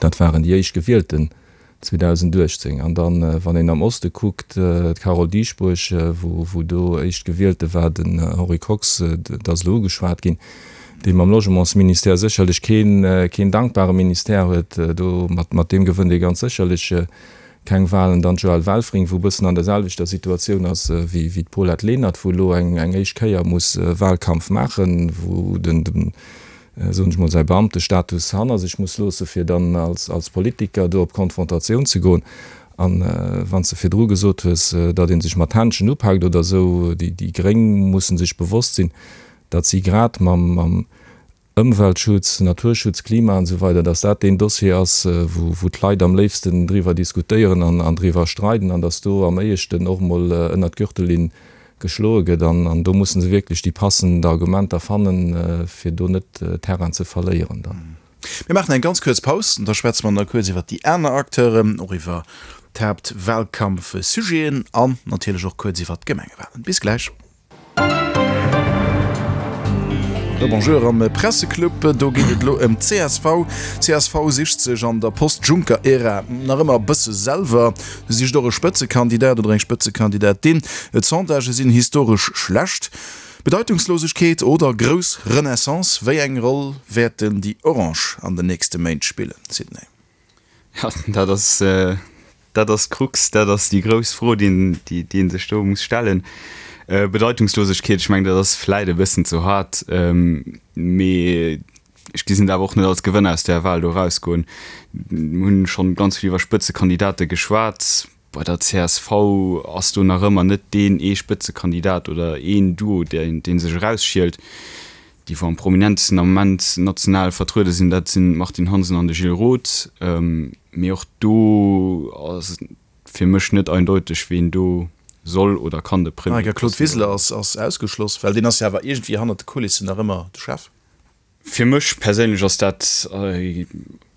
dat waren déi éischt Gewielten 2018. An dann, wann een am Oste kuckt, d'Carole Dieschbourg, wou wou do éischt Gewielte war, den Henri Kox, dat ass elo ugeschwat ginn. Dee mam Logementsministère sécherlech keen, keen dankbare Ministère huet. Do, mat, mat deem gewënnt ee ganz sécherlech keng Wahlen. Dann d'Joëlle Welfring, wou e bëssen an der selwechter Situatioun ass wéi, wéi d'Paulette Lenert, wou elo eng, eng éischt Kéier muss Wahlkampf maachen, wou den, den, soen ech mol, säi Beamtestatus hanner sech muss loosse fir dann als, als Politiker do op Konfrontatioun ze goen. An wann s de virdru gesot hues, datt ee sech mat Händschen upaakt oder esou, déi, déi Gréng musse sech bewosst sinn, datt si grad mam, mam Ëmweltschutz, Naturschutz, Klima an esou weider, datt dat deen Dossier ass, wou, wou d'Leit am léifsten driwwer diskutéieren an, an driwwer streiden an datt do am éischten och emol ënnert d'Gürtellinn geschloe gëtt. An, an do musse se wierklech déi passend Argumenter fannen, fir do net Terrain ze verléieren dann. Mir maachen eng ganz kuerz Paus an da schwätze mer nach kuerz iwwer déi aner Acteuren, och iwwer d'Haaptwahlkampfsujeten an natierlech och kuerz iwwer d'Gemengewahlen. Bis gläich. Rebonjour am Presseclub. Do geet et elo ëm d'CSV. D'CSV sicht sech an der Post-Juncker-Ära nach ëmmer e bësse selwer, sicht och e Spëtzekandidat oder eng Spëtzekandidatin. D'Sondagë sinn historesch schlecht. Bedeitungslosegkeet oder grouss Renaissance, wéi eng Roll wäerten déi Orange an den nächste Méint spillen, Sidney? Ja, dat ass, dat ass d'Krux, dat ass déi grouss Fro, déi een, déi ee sech do muss stellen. Bedeitungslosegkeet, ech mengen, dat ass vläit e bëssen ze haart, mee ech gesinn et awer och net als Gewënner aus där Wahl do erausgoen. Mir hunn schonn ganz vill iwwer Spëtzekandidate geschwat. Bei der csv ass do nach ëmmer net deen ee Spëtzekandidat oder een Duo, deen sech erausschielt. Déi wou am prominentesten am Moment national vertruede sinn, dat sinn d'Martine Hansen an de Gilles Roth. Mee och do ass et fir mech net eindeuteg, ween do soll oder kann de Premier. Claude Wiseler ass ausgeschloss, well deen ass jo awer iergendwéi hannert de Kulissen nach ëmmer de Chef. Fir mech perséinlech ass dat,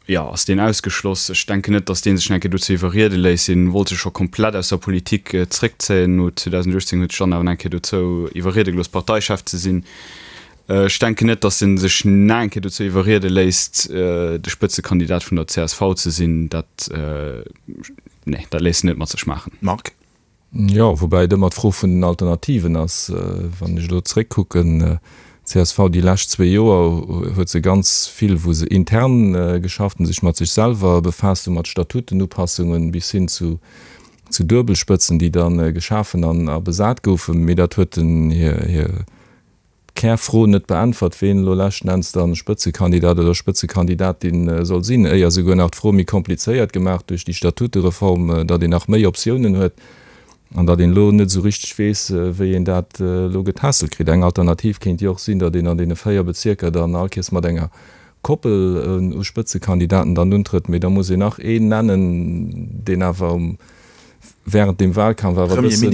jo, ass deen ausgeschloss. Ech denken net, datt dee sech nach eng Kéier dozou iwwerriede léisst. Hien wollt sech scho komplett aus der Politik zréckzéien. No 2018 huet sech dann awer nach eng Kéier dozou iwwerriede gelooss, Parteichef ze sinn. Ech denken net, datt en sech nach eng Kéier dozou iwwerriede léisst, de Spëtzekandidat vun der csv ze sinn. Dat, nee, dat léisst en net mat sech maachen. Marc. Jo, woubäi et ëmmer d'Fro vun den Alternativen ass. Wann ech elo zréckkucken, csv déi lescht zwee Joer huet se ganz vill, wou se intern geschafft hunn, sech mat sech selwer befaasst hunn, mat Statutenupassungen bis hin zu zu Duebelspëtzen, déi da geschafen an a besat goufen. Mee dat huet den hir Kärfro net beäntwert, ween elo leschten Enns dann Spëtzekandidat oder Spëtzekandidatin soll sinn, éier souguer nach d'Fro méi komplizéiert gemaach duerch déi Statutereform, datt een nach méi Optiounen huet an datt een elo net esou richteg weess, wéi een dat elo getässelt kritt. Eng Alternativ kéint jo och sinn, datt een an deene 4 Bezierker dann all Kees mat enger Koppel u Spëtzekandidaten dann untrëtt, mee da muss een nach een nennen, deen awer um während dem Wahlkampf awer e bëssen,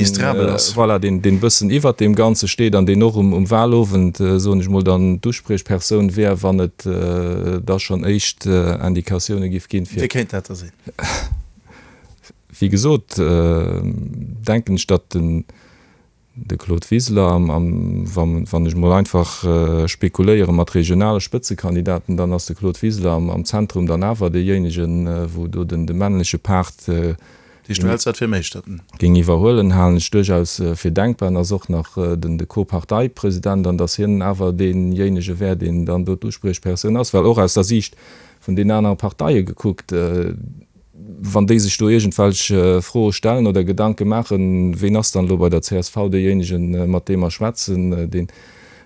voilà, deen, deen e bëssen iwwert deem Ganze steet an deen och um, um Wahlowend, soen ech mol, dann d'Uspriechpersoun wär, wann et da schonn éischt Indikatioune giff ginn, fir. Wie kéint dat da sinn? Wéi gesot, denken ech, datt den, De Claude Wiseler, Am, wann ech mol einfach spekuléiere mat regionale Spëtzekandidaten, dann ass de Claude Wiseler am Zentrum dann awer deejéinegen, wou do den de männleche Part géing iwwerhuelen, halen ech duerchaus fir denkbar. En ass och nach den de Co-Parteipresident an datt hien awer deejéinege wär, deen dann do d'Uspriechpersoun ass, well och aus der Siicht vun den anere Parteie gekuckt, wann déi sech do iergendwelch Froe stellen oder Gedanke maachen, ween ass dann elo bei der csv deejéinegen, mat deem mer schwätzen, deen,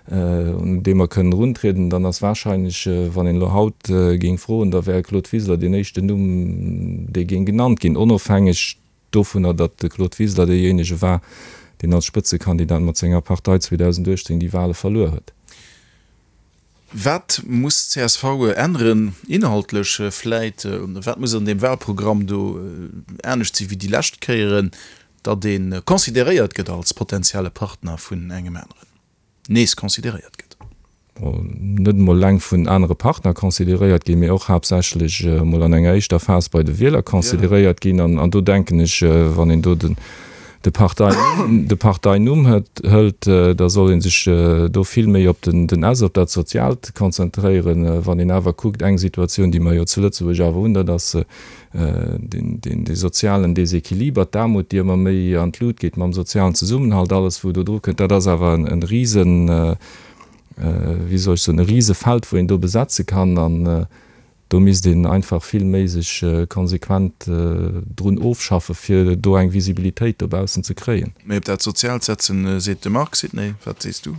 un dee mer kënnen eruntrieden, dann ass wahrscheinlech, wann een elo haut géing froen, da wär Claude Wiseler deen éischten Numm, dee géing genannt ginn, onofhängeg dovunner, datt de Claude Wiseler deejéinege war, deen als Spëtzekandidat mat senger Partei 2018 déi Wahle verluer huet. Wat muss csv änneren, inhaltlech vläit? Wat muss an deem Wahlprogramm do anescht si wéi déi lescht Kéieren, datt ee consideréiert gëtt als potenzielle Partner vun engem aneren, nees consideréiert gëtt? Net emol eleng vun anere Partner consideréiert ginn, mee och haaptsächlech emol an enger éischter Phas bei de Wieler consideréiert ginn. An do denken ech, wann een do den de Partei, de Parteinumm hëlt, da soll ee sech do vill méi op den den S, op dat Soziaalt konzentréieren. Wann een awer kuckt, eng Situatioun, déi mer jo zu Lëtzebuerg awer hunn, dat ass deen, deen, dee sozialen Desequiliber, d'Aarmut, déi ëmmer méi an d'Lut geet mam sozialen Zesummenhalt, alles wou do dru kënnt, dat ass awer en, en risen. wéi soll ech soen, e Risefeld, wou een do besetze kann. An do misst een einfach vill méi sech konsequent drun ofschaffe fir do eng Visibilitéit dobaussen ze kréien. Méi op dat Soziaalt setzen, seet de Marc. Sidney, wat sees du?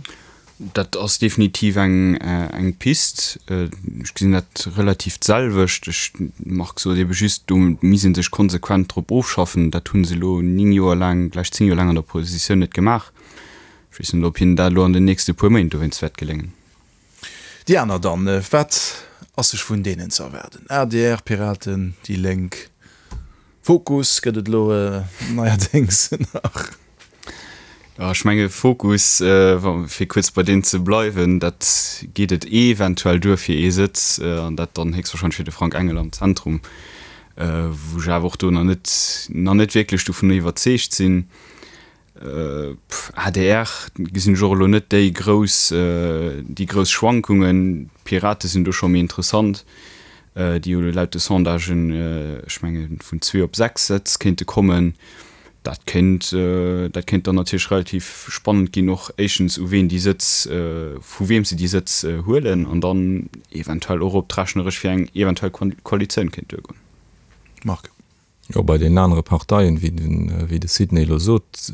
Dat ass definitiv eng Pist. Ech gesinn dat relativ d'selwecht. Ech, Marc sot ebe just, do misst ee sech konsequent drop ofschaffen. Dat hu se elo 9 Joer laang, gläich 10 Joer laang an der Oppositioun net gemaach. Ech weess net, ob hinnen dat elo an den nächste puer Méint dowéinst wäert geléngen. Déi aner dann, wat ass sech vun deenen ze erwaarden? Adr, Piraten, déi Lénk, Fokus gëtt et elo neierdéngs nach. Jo, ech menge Fokus, fir kuerz bei deem ze bleiwen, dat geet et eventuell duer fir ee Sëtz, an dat dann héchstwahrscheinlech fir de Frank Engel am Zentrum, wou ech awer och do nach net, nach net wierklech dovun iwwerzeegt sinn. Adr gesinn ech och elo net déi grouss, déi grouss Schwankungen. D'Pirate sinn do scho méi interessant, déi jo laut de Sondagen, ech menge vun zwee op 6 Sëtz kéinte kommen. Dat kéint, dat kéint dann natierlech relativ spannend ginn, och éischtens u ween déi Sëtz, vu weem se déi Sëtz huelen an dann eventuell och ob d'rechneresch fir eng eventuell Koalitioun kéint duergoen. Marc. Jo, bei deenen anere Parteien, wéi den, wéi de Sidney elo sot,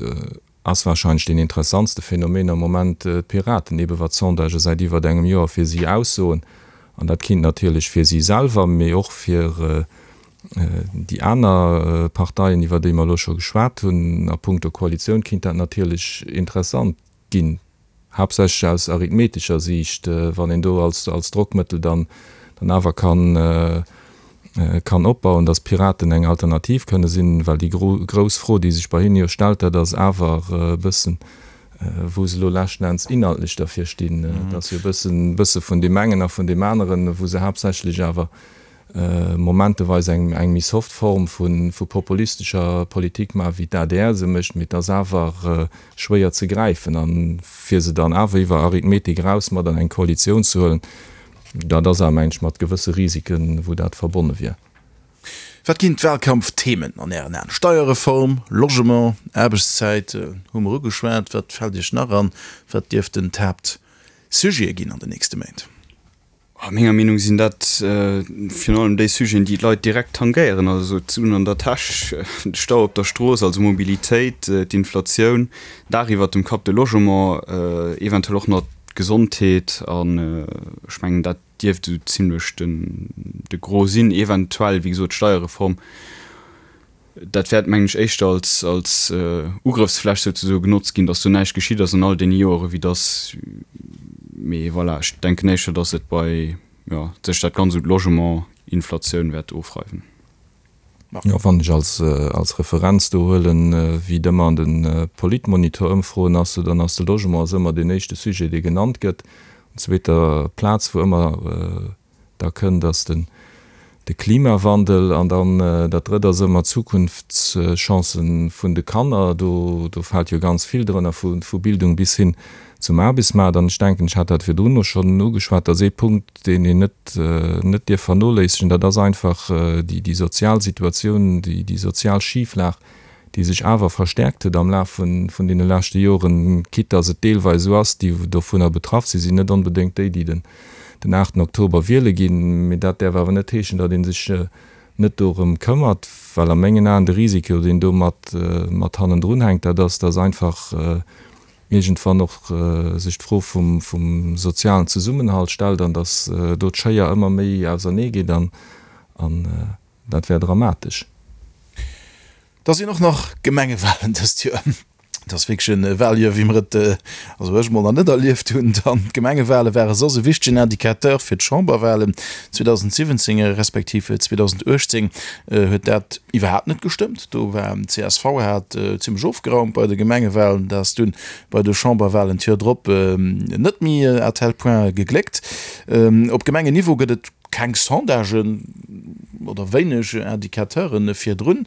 ass wahrscheinlech deen interessantste Phänomen am Moment d'Piraten, ebe wat d'Sondagë säit iwwert engem Joer fir si aussoen. An dat kinnt natierlech fir si selwer, mee och fir déi aner Parteien, iwwer déi mer elo scho geschwat hunn, a puncto Koalitioun kinnt dat natierlech interessant ginn, haaptsächlech aus arithmetescher Siicht, wann een do als als Drockmëttel dann dann awer kann kann opbauen, datt d'Piraten eng Alternativ kënne sinn, well déi grouss Fro, déi sech bei hinne jo stellt, dat ass awer e bëssen, wou se elo leschten Enns inhaltlech derfir stinn. Et ass jo e bëssen bësse vun deem engen a vun deem aneren, wou se haaptsächlech awer momenteweis eng eng méi soft Form vu vu populistescher Politik maachen, wéi d'ADR se mécht, mee et ass awer schwéier ze gräifen. A fir se dann awer iwwer Arithmetik eraus mat an eng Koalitioun ze huelen, dat ass awer, mengen ech, mat gewësse Risiken, wou dat verbonne wier. Wat ginn d'Wahlkampfthemen an Ären Aen? Steierreform, Logement, Aarbechtszäit hu mer ugeschwat. Wat fält Iech nach an? Wat dierften d'Haaptsujete ginn an den nächste Méint? A menger Meenung sinn dat virun allem déi Sujeten, déi d'Leit direkt tangéieren, also d'Suen an der Täsch, de Stau op der Strooss, also Mobilitéit, d'Inflatioun, Daach iwwert dem Kapp, de Logement, eventuell och nach d'Gesondheet. An ech mengen, dat dierft esou zimlech de Gros sinn. Eventuell, wéi gesot, d'Steierreform. Dat wäert, mengen ech, éischter als, als Ugrëffsfläch souzesoe genotzt ginn, datt do näischt geschitt ass an all deene Joere wéi datt, mee voilà, ech denken éischter, datt et bei, jo, sech dat Ganzt un d'Logement, Inflatioun wäert ofreiwen. Jo, wann ech als, als Referenz do huelen, wéi et ëmmer an de Politmonitor-Ëmfroen ass, dann ass de Logement ass ëmmer deen éischte Sujet, dee genannt gëtt. Un zweeter Plaz, wou ëmmer Da kënnt ass den de Klimawandel an dann dat drëtt ass ëmmer d'Zukunftschancen vun de Kanner. Do do fält jo ganz vill drënner, vu vu Bildung bis hin zum Aarbechtsmaart. An ech denken, ech hat dat virdrun och schonn ugeschwat, dass ee Punkt, deen een net net dierf vernoléissegen, dat ass einfach déi déi sozial Situatioun, déi déi sozial Schiflag, déi sech awer verstärkt huet am Laf vun deene leschte Joren, quitte dass et deelweis esou ass, déi dovunner betraff sinn, sinn net onbedéngt déi, déi den aachten Oktober wiele ginn. Mee dat däerf awer net heeschen, datt ee sech net dorëm këmmert, well a mengen Aen de Risiko, deen do mat mat hannendrun hänkt, dat ass, dass einfach iergendwann och sech d'Fro vum vum sozialen Zesummenhalt stellt an dass do d'Schéier ëmmer méi ausernee geet an Dat wär dramatesch. Da sinn och nach Gemengewalen dëst Joer. Et ass wierklech e Waljoer, wéi mer et, also ech mol, nach net erlieft hunn. Dann d'Gemengewale ware soss e wichtegen Indicateur fir d'Chamberwalen. 2017 respektiv 2018 huet dat iwwerhaapt net gestëmmt. Do war csv hat zimmlech ofgeraumt bei de Gemengewalen. Dat ass dunn bei de Chamberwalen d'Joer drop net méi à tel point gegléckt. Op Gemengenniveau gëtt et Keng Sondagen oder wéineg Indicateuren virdrun.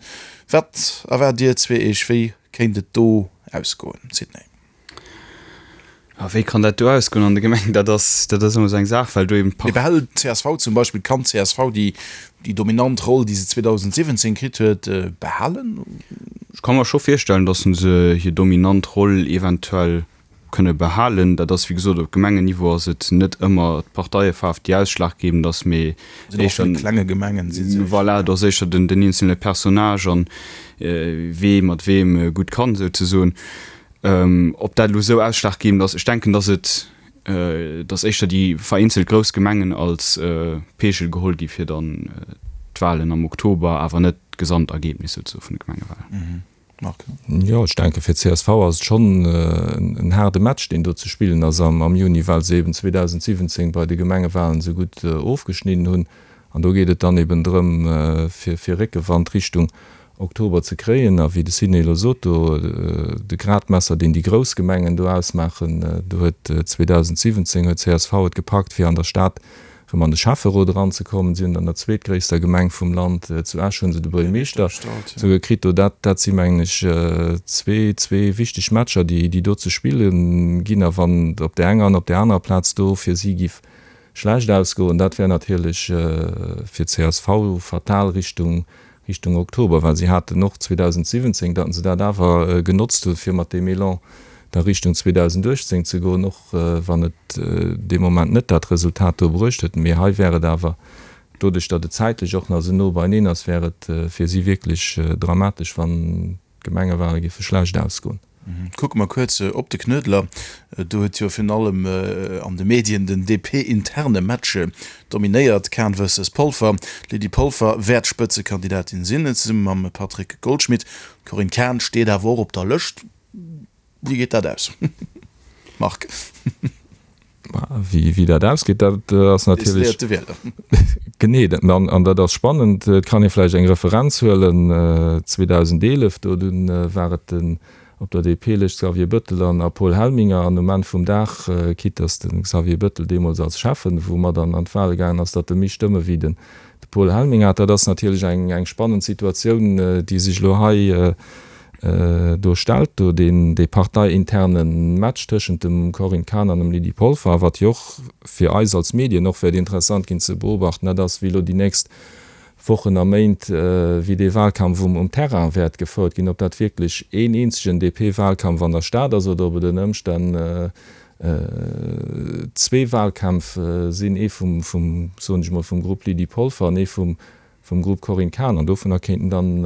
Wat erwaart Dir zweeëch? Wéi kéint et do ausgoen, Sidney? A wéi kann dat do ausgoen an de Gemengen? Dat ass, dat ass ëmmer esou eng Saach, well do eben d'Part. Mee behält d'CSV zum Beispill, kann d'CSV déi, déi dominant Roll, déi se 2017 kritt huet, behalen? Ech ka mer scho virstellen, datt se hir dominant Roll eventuell. kënne behalen. Dat ass wéi gesot, op Gemengenniveau ass et net ëmmer d'Parteiefaarf déi ausschlaggebend ass, mee éischter, klenge Gemengen si se. Voilà, do ass éischter den eenzele Personnage an wee mat weem gutt kann, souzesoen. Ob dat elo esou ausschlaggebend ass, ech denken, datt et, datt éischter déi vereenzelt grouss Gemengen als Peegel geholl gi fir dann d'Wahlen am Oktober, awer net d'Gesamtergebnis souzesoe vun de Gemengewahlen. Marc? Jo, ech denke fir csv ass et schonn en haarde Match, deen do ze spillen ass am Juni, well se eben 2017 bei de Gemengewahlen esou gutt ofgeschnidden hunn. An do geet et dann eben drëm, fir Réckewand Richtung Oktober ze kréien. A wéi de Sidney elo sot, do de Gradmesser, deen déi grouss Gemengen do ausmaachen, do huet 2017 huet csv et gepackt, fir an der Stad erëm an de Schäfferot eranzekommen. Si hunn an der zweetgréisster Gemeng vum Land, zu Esch, hu se de Buergermeeschter souguer kritt. Do dat, dat si mengen ech zwee, zwee wichteg Matcher, déi, déi do ze spille ginn. A wann et op där enger an op där anerer Plaz do fir si giff schlecht ausgoen, dat wär natierlech fir csv fatal Richtung, Richtung Oktober, well si haten och 2017, datt se dat awer genotzt hunn, fir mat deem Elan da Richtung 2018 ze goen, och wann et dee Moment net dat Resultat do bruecht huet. Mee hei wär et awer, doduerch datt et zäitlech och nach esou no beineen ass, wär et fir si wierklech dramatesch, wann d'Gemengewale géife schlecht ausgoen. Kucke mer kuerz op de Knuedler. Do huet jo virun allem an de Medien den DP-interne Match dominéiert, Kahn versus Polfer. D'Lydie Polfer wäert Spëtzekandidatin sinn, zesumme mam Patrick Goldschmidt. D'Corinne Cahen steet awer och op der Lëscht. Wéi geet dat aus, Marc? Wéi dat ausgeet, dat ass natierlech. Decidéiert de Wieler. Genee, an dat ass spannend. Et kann ee vläicht eng Referenz huelen, 2011, do dunn war et den op der DP-Lëscht Xavier Bëttel an a Paul Helminger. An um Enn vum Dag, quitte datt de Xavier Bëttel deemools als Schäffen wou mat an an d'Wahle gaangen ass, datt e méi Stëmme wéi den de Paul Helminger hat. Dat ass natierlech eng eng spannend Situatioun, déi sech elo hei Do stellt do deen dee parteiinterne Match tëschent dem Corinne Cahen an dem Lydie Polfer, a wat jo och fir eis als Medien och wäert interessant ginn ze beobachten, dat ass, wéi elo déi nächst Wochen a Méint, wéi dee Wahlkampf um um Terrain wäert gefouert ginn, ob dat wierklech een eenzegen DP-Wahlkampf an der Stad ass oder ob et ënner Ëmstänn zwee Wahlkämpf sinn, ee vum, vum, soen ech emol, vum Grupp Lydie Polfer an ee vum vum Grupp Corinne Cahen, an dovunner kéinten dann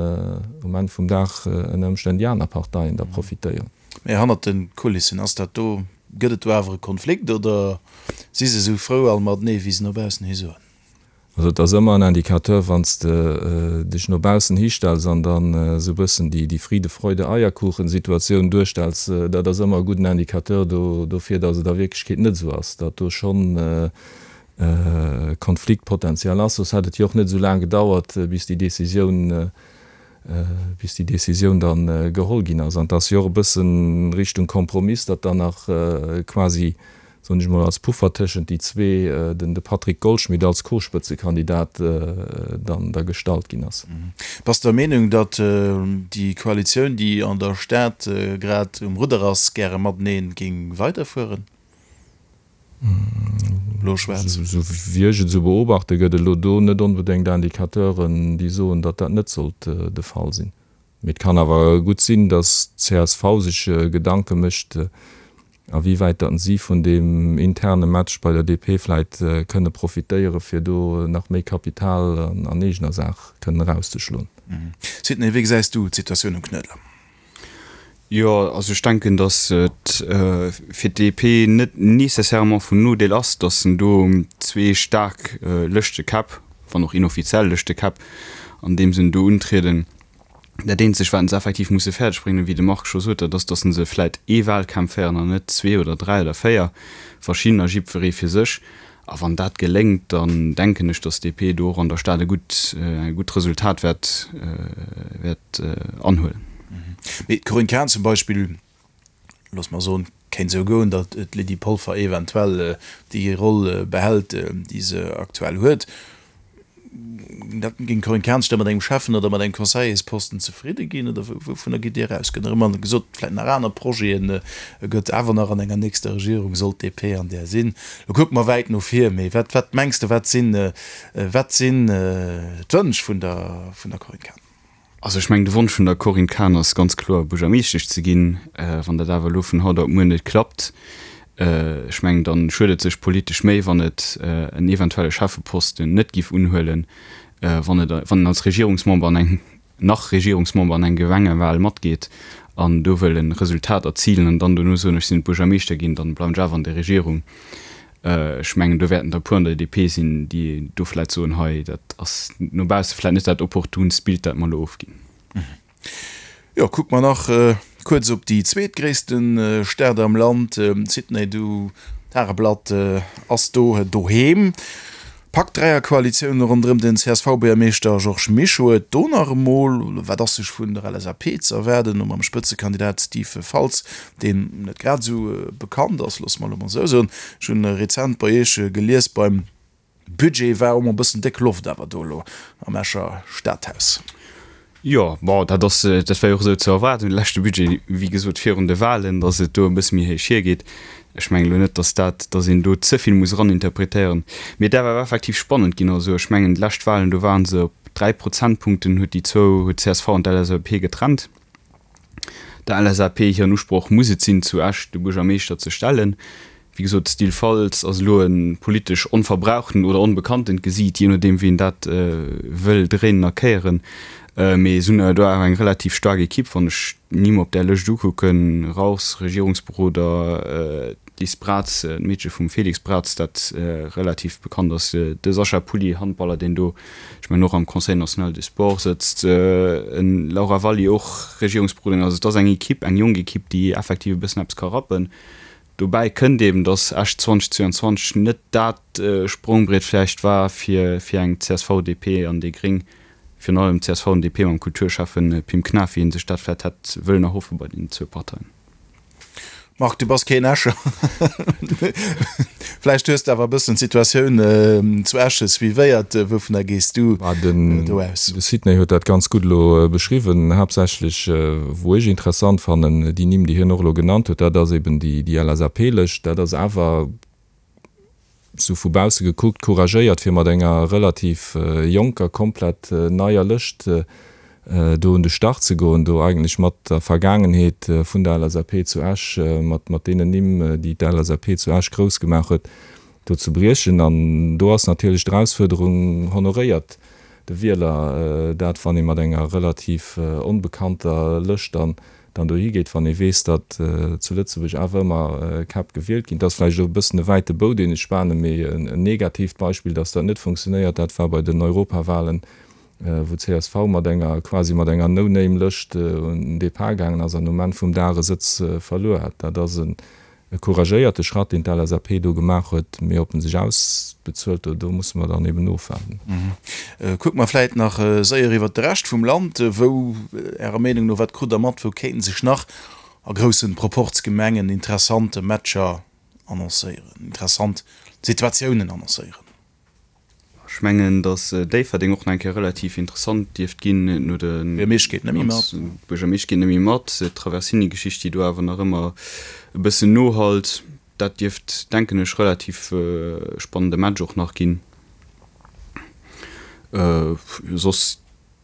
um Enn vum Dag ënner Ëmstänn déi aner Parteien da profitéieren. Mä hannert de Kulissen, ass dat do, gëtt et do awer e Konflikt oder si se esou frou all matenee wéi se no baussen hi soen? Also et ass ëmmer en Indicateur, wann s de dech no baussen histells an dann esou e bëssen déi Friede-Freude-Eierkuchen-Situatioun duerstells, dat ass ëmmer e gudden Indicateur dofir, datt et a Wierklechkeet net esou ass, datt do schonn Konfliktpotential ass, soss hätt et jo och net esou laang gedauert, bis déi Décisioun, bis déi Décisioun da geholl ginn ass. An et ass jo och e bësse Richtung Kompromiss, datt dann nach quasi, soen ech mol, als Puffer tëschent déi zwee den de Patrick Goldschmidt als Co-Spëtzekandidat dann da gestallt ginn ass. Bass de der Meenung, datt déi Koalitioun, déi an der Stad grad um Rudder ass, gäre matenee géing weiderfueren? Blo-schwaarz. Esou wéi ech et esou beobachte gëtt et elo do net onbedéngt Indicateuren, déi soen, datt dat net sollt de Fall sinn. Mee et kann awer gutt sinn, datt d'CSV sech Gedanke mécht, a wéi wäit datt si vun deem interne Match bei der DP vläit kënne profitéieren, fir do nach méi Kapital an eegener Saach kënnen erauszeschloen. Sidney, wéi gesäis du d'Situatioun um Knuedler? Jo, also ech denken, datt et fir d'DP net nécessairement vun Nodeel ass, datt en do zwee staark Lëschtekäpp, wann och inoffiziell Lëschtekäpp, an deem Sënn do untrieden. Dat eenzegt, wat se effektiv musse fäerdeg bréngen, wéi de Marc scho sot, dat ass, datt se vläit ee Wahlkampf féieren an net zwee oder dräi oder véier verschiddener, jiddweree fir sech. A wann dat geléngt, dann denken ech, datt d'DP do och an der Stad e gutt, e gutt Resultat wäert, wäert anhuelen. Mee d'Corinne Cahen zum Beispill, loosse mer soen, kéint esou goen, datt d'Lydie Polfer eventuell déi Roll behält, déi se aktuell huet. Dat géing d'Corinne Cahen sech da mat engem Schäffen oder mat engem Conseillersposten zefridde ginn? Oder wouvunner gitt Dir aus? Gëtt nach ëmmer gesot, vläicht nach aner Projeten, gëtt awer nach an enger nächster Regierung, sollt d'DP an där sinn. Lo kucke mer wäit no vir, mee wat, wat mengs de, wat sinn, wat sinn d'Wënsch vun der, vun der Corinne Cahen? Also ech mengen, de Wonsch vun der Corinne Cahen ass ganz kloer, Buergermeeschtesch ze ginn. Wann dat awer elo vun haut op muer net klappt, ech mengen, da schuet et sech politesch méi, wann et en eventuelle Schäffeposten net giff unhuelen, wann et, wann en als Regierungsmember an eng, nach Regierungsmember an eng Gemengewahl matgeet an do wëll e Resultat erzilen an dann dono soen, ech sinn net Buergermeeschter ginn, dann bleiwen ech awer an der Regierung. Ech mengen, do wäerten der e puer an der DP sinn, déi do vläicht soen, hei, dat ass no bausse vläicht net dat opportunst Bild, dat mer elo ofginn. Jo, kucke mer nach kuerz op déi zweetgréisste Stad am Land, Sydney. Du, d'Tageblatt ass do doheem. Packt d'Dräierkoalitioun ronderëm den CSV-Buergermeeschter Georges Mischo et do nach emol? Wat ass sech vun der LSAP ze erwaarden, no mam Spëtzekandidat Steve Faltz, deen net grad esou bekannt ass, loosse mer elo mol esou soen. Ech hunn rezent bei Iech gelies, beim Budget war och mol e bëssen déck Loft awer do elo am Escher Stadhaus. Jo, bon, dat ass, dat war jo och esou ze erwaarden, de leschte Budget, wéi gesot, virun de Wahlen, datt et do e bësse méi héich hiergeet. Ech mengen elo net, datt dat, datt een do ze vill muss eraninterpretéieren. Mee et däerf awer effektiv spannend ginn. Also ech mengen, déi lescht Wahlen, do ware se op 3 Prozentpunkten, huet déi zwou, huet d'CSV an d'LSAP getrennt. Der LSAP hiren Usproch muss et sinn, zu Esch de Buergermeeschter ze stellen. Wéi gesot, d'Style Faltz ass elo e politesch onverbrauchten oder onbekanntent Gesiit, jee nodeem wéi een dat wëll dréinen a kéieren. Mee se hunn do awer eng relativ staark Ekipp, wann ech d'Nimm op där Lëscht ukucken, Rauchs, Regierungsberoder, D'Liz Braz, d'Meedche vum Félix Braz, dat relativ bekannt ass, de Sascha Pulli, Handballer, deen do, ech mengen, och am Conseil national du sport sëtzt, en Laura Valli, och Regierungsberoderin. Also et ass eng Ekipp, eng jonk Ekipp, déi effektiv e bëssen eppes ka rappen. Dobäi kënnt eben, datt Esch 2022 net dat Sprongbriet vläicht war fir fir eng csv, DP an déi Gréng, virun allem csv an DP mam Kulturschäffe Pim Knaff, wéi ee sech dat vläicht hätt wëllen erhoffe bei deenen zwou Parteien. Marc, du bass keen Escher. Vläicht hues de awer e bëssen d'Situatioun zu Esch suivéiert. Wouvunner gees du do aus? De Sidney huet dat ganz gutt elo beschriwwen. Haaptsächlech, wou ech interessant fannen, déi Nimm, déi hien och elo genannt huet, dat ass eben déi LSAP-Lëscht. Dat ass awer sou vu bausse gekuckt, couragéiert fir mat enger relativ jonker, komplett neier Lëscht do un de Start ze goen, do eigentlech mat der Vergaangenheet vun der LSAP zu Esch, mat mat deenen Nimm, déi d'LSAP zu Esch grouss gemaach huet, do ze briechen. An do ass natierlech d'Erausfuerderung, honoréiert de Wieler dat, wann ee mat enger relativ onbekannter Lëscht dann dann dohi geet, wann ee weess, datt zu Lëtzebuerg awer ëmmer Käpp gewielt ginn. Et ass vläicht elo e bëssen e wäite Bou, deen ech spanen, mee en negatiivt Beispill, datt dat net funktionéiert, dat war bei den Europawahlen, wou csv mat enger, quasi mat enger No-Name-Lëscht un den Depart gaangen ass an um Enn vum Dag e Sëtz verluer hat. Dat ass en E couragéierte Schratt, deen d'LSAP do gemaach huet, mee ob en sech ausbezuelt, do musse mer dann eben ofwaarden. Kucke mer vläit nach séier iwwert de Rescht vum Land. Wou, Ärer Meenung no, wat krut Der mat, wou kéinten sech nach a groussen Proporzgemengen interessant Matcher annoncéieren, interessant Situatiounen annoncéieren? Ech mengen, datt Déifferdeng och nach eng Kéier relativ interessant dierft ginn no de. Buergermeescht geet net méi mat. Buergermeescht geet net méi mat. D'Traversini-Geschicht, déi do awer nach ëmmer e bëssen nohallt, dat dierft, denken ech, relativ spannende Match och nach ginn. Soss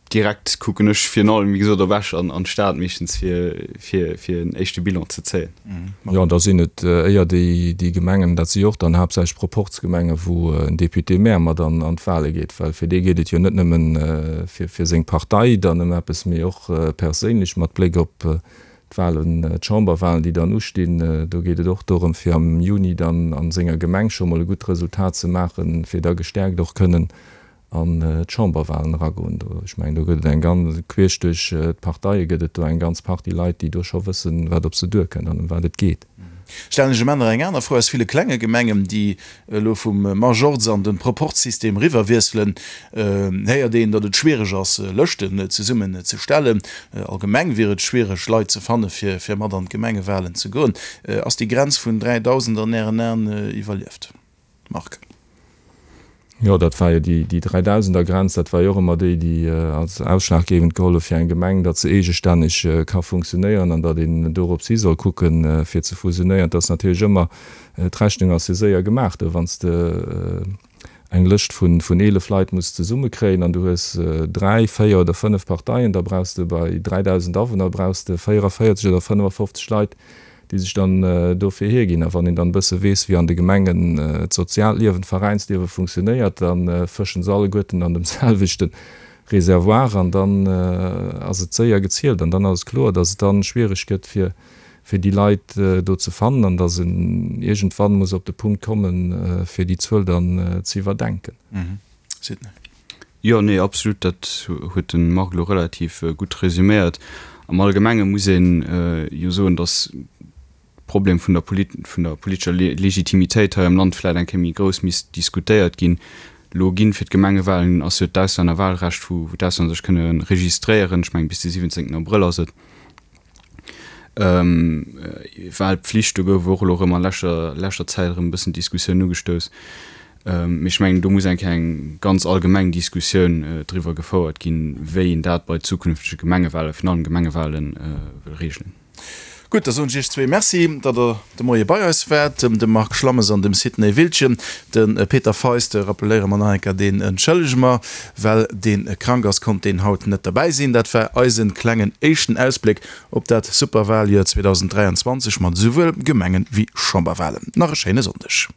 Direkt kucken ech virun allem, wéi gesot, op Esch an an d'Stad meeschtens fir fir fir en éischte Bilan ze zéien. Jo, an da sinn et éier déi déi Gemengen, dat si jo och dann haaptsächlech Proporzgemenge wou en Député-maire mat an an d'Wahle geet, well fir dee geet et jo net nëmmen fir fir seng Partei dann ëm eppes, mee och perséinlech mat Bléck op d'Wahlen, d'Chamberwahlen, déi dann ustinn. Do geet et och dorëm fir am Juni dann a senger Gemeng scho mol e gutt Resultat ze maachen, fir da gestäerkt och kënnen an d'Chamberwahlen eragoen. Do, ech mengen, do gëtt et eng ganz, queesch duerch d'Parteie gëtt et do eng ganz Partie Leit, déi do scho wëssen, wat op se duerkënnt an ëm wat et geet. Stellen ech em aner eng aner Fro, Aus ville klenge Gemengen, déi elo vum Majorz an de Proporzsystem eriwwerwiesselen, héiert een, datt et schwiereg ass, Lëschten zesummen ze stellen. Allgemeng wier et schwiereg, Leit ze fanne fir fir mat an d'Gemengewahlen ze goen. Ass déi Grenz vun 3.000 an Ären Aen iwwerlieft? Marc. Jo, dat war jo déi, déi Dräidausender-Grenz, dat war jo och ëmmer déi, déi als ausschlaggebend geholl huet fir eng Gemeng, datt se eegestänneg ka funktionéieren an datt een dorops hi soll kucken, fir ze fusionéieren. Et ass natierlech ëmmer, d'Rechnung ass jo séier gemaach do, wann s de. eng Lëscht vun 11 Leit muss zesummekréien an du hues dräi, véier oder fënnef Parteien, da brauchs de bei 3.000 Awunner brauchs de 44 oder 55 Leit, déi sech dann dofir hierginn. A wann een dann e bësse weess, wéi an de Gemengen d'soziaalt Liewen, d'Veräinsliewe funktionéiert, da fëschen se alleguerten an dem selwechte Reservoir an dann ass et séier gezielt an dann ass et kloer, datt et dann schwiereg gëtt fir fir déi Leit do ze fannen an datt en iergendwann muss op de Punkt kommen, fir déi Zuel dann ze iwwerdenken. Sidney. Jo, nee, absolut, dat huet de Marc elo relativ gutt resüméiert. Am Allgemenge muss ee jo soen, datt Problem vun der vun der politescher Legitimitéit hei am Land vläit eng Kéier méi grouss misst diskutéiert ginn. Elo ginn fir d'Gemengewahlen ass jo d'Auslännerwahlrecht, wou d'Auslänner sech kënne registréieren, ech mengen bis de 17 Abrëll ass et. Wahlpflicht, do gouf och elo erëm a leschter leschter Zäit erëm e bëssen d'Diskussioun ugestouss. Mee ech mengen, do muss eng Kéier eng ganz allgemeng Diskussioun driwwer gefouert ginn, wéi een dat bei zukünftege Gemengewahlen, virun allem Gemengewahlen, wëll regelen. Gutt, da soen ech Iech zwee Merci, datt Der de Moie bei eis waart, dem Marc Schlammes an dem Sidney Wildgen. De Peter Feist rappeléiere mer nach eng Kéier, deen entschëllege mer, well dee krank ass, konnt deen haut net derbäi sinn. Dat war eise klengen éischten Ausbléck op dat Superwaljoer 2023 mat esouwuel Gemengen wéi Chamberwalen. Nach e schéine Sonndeg.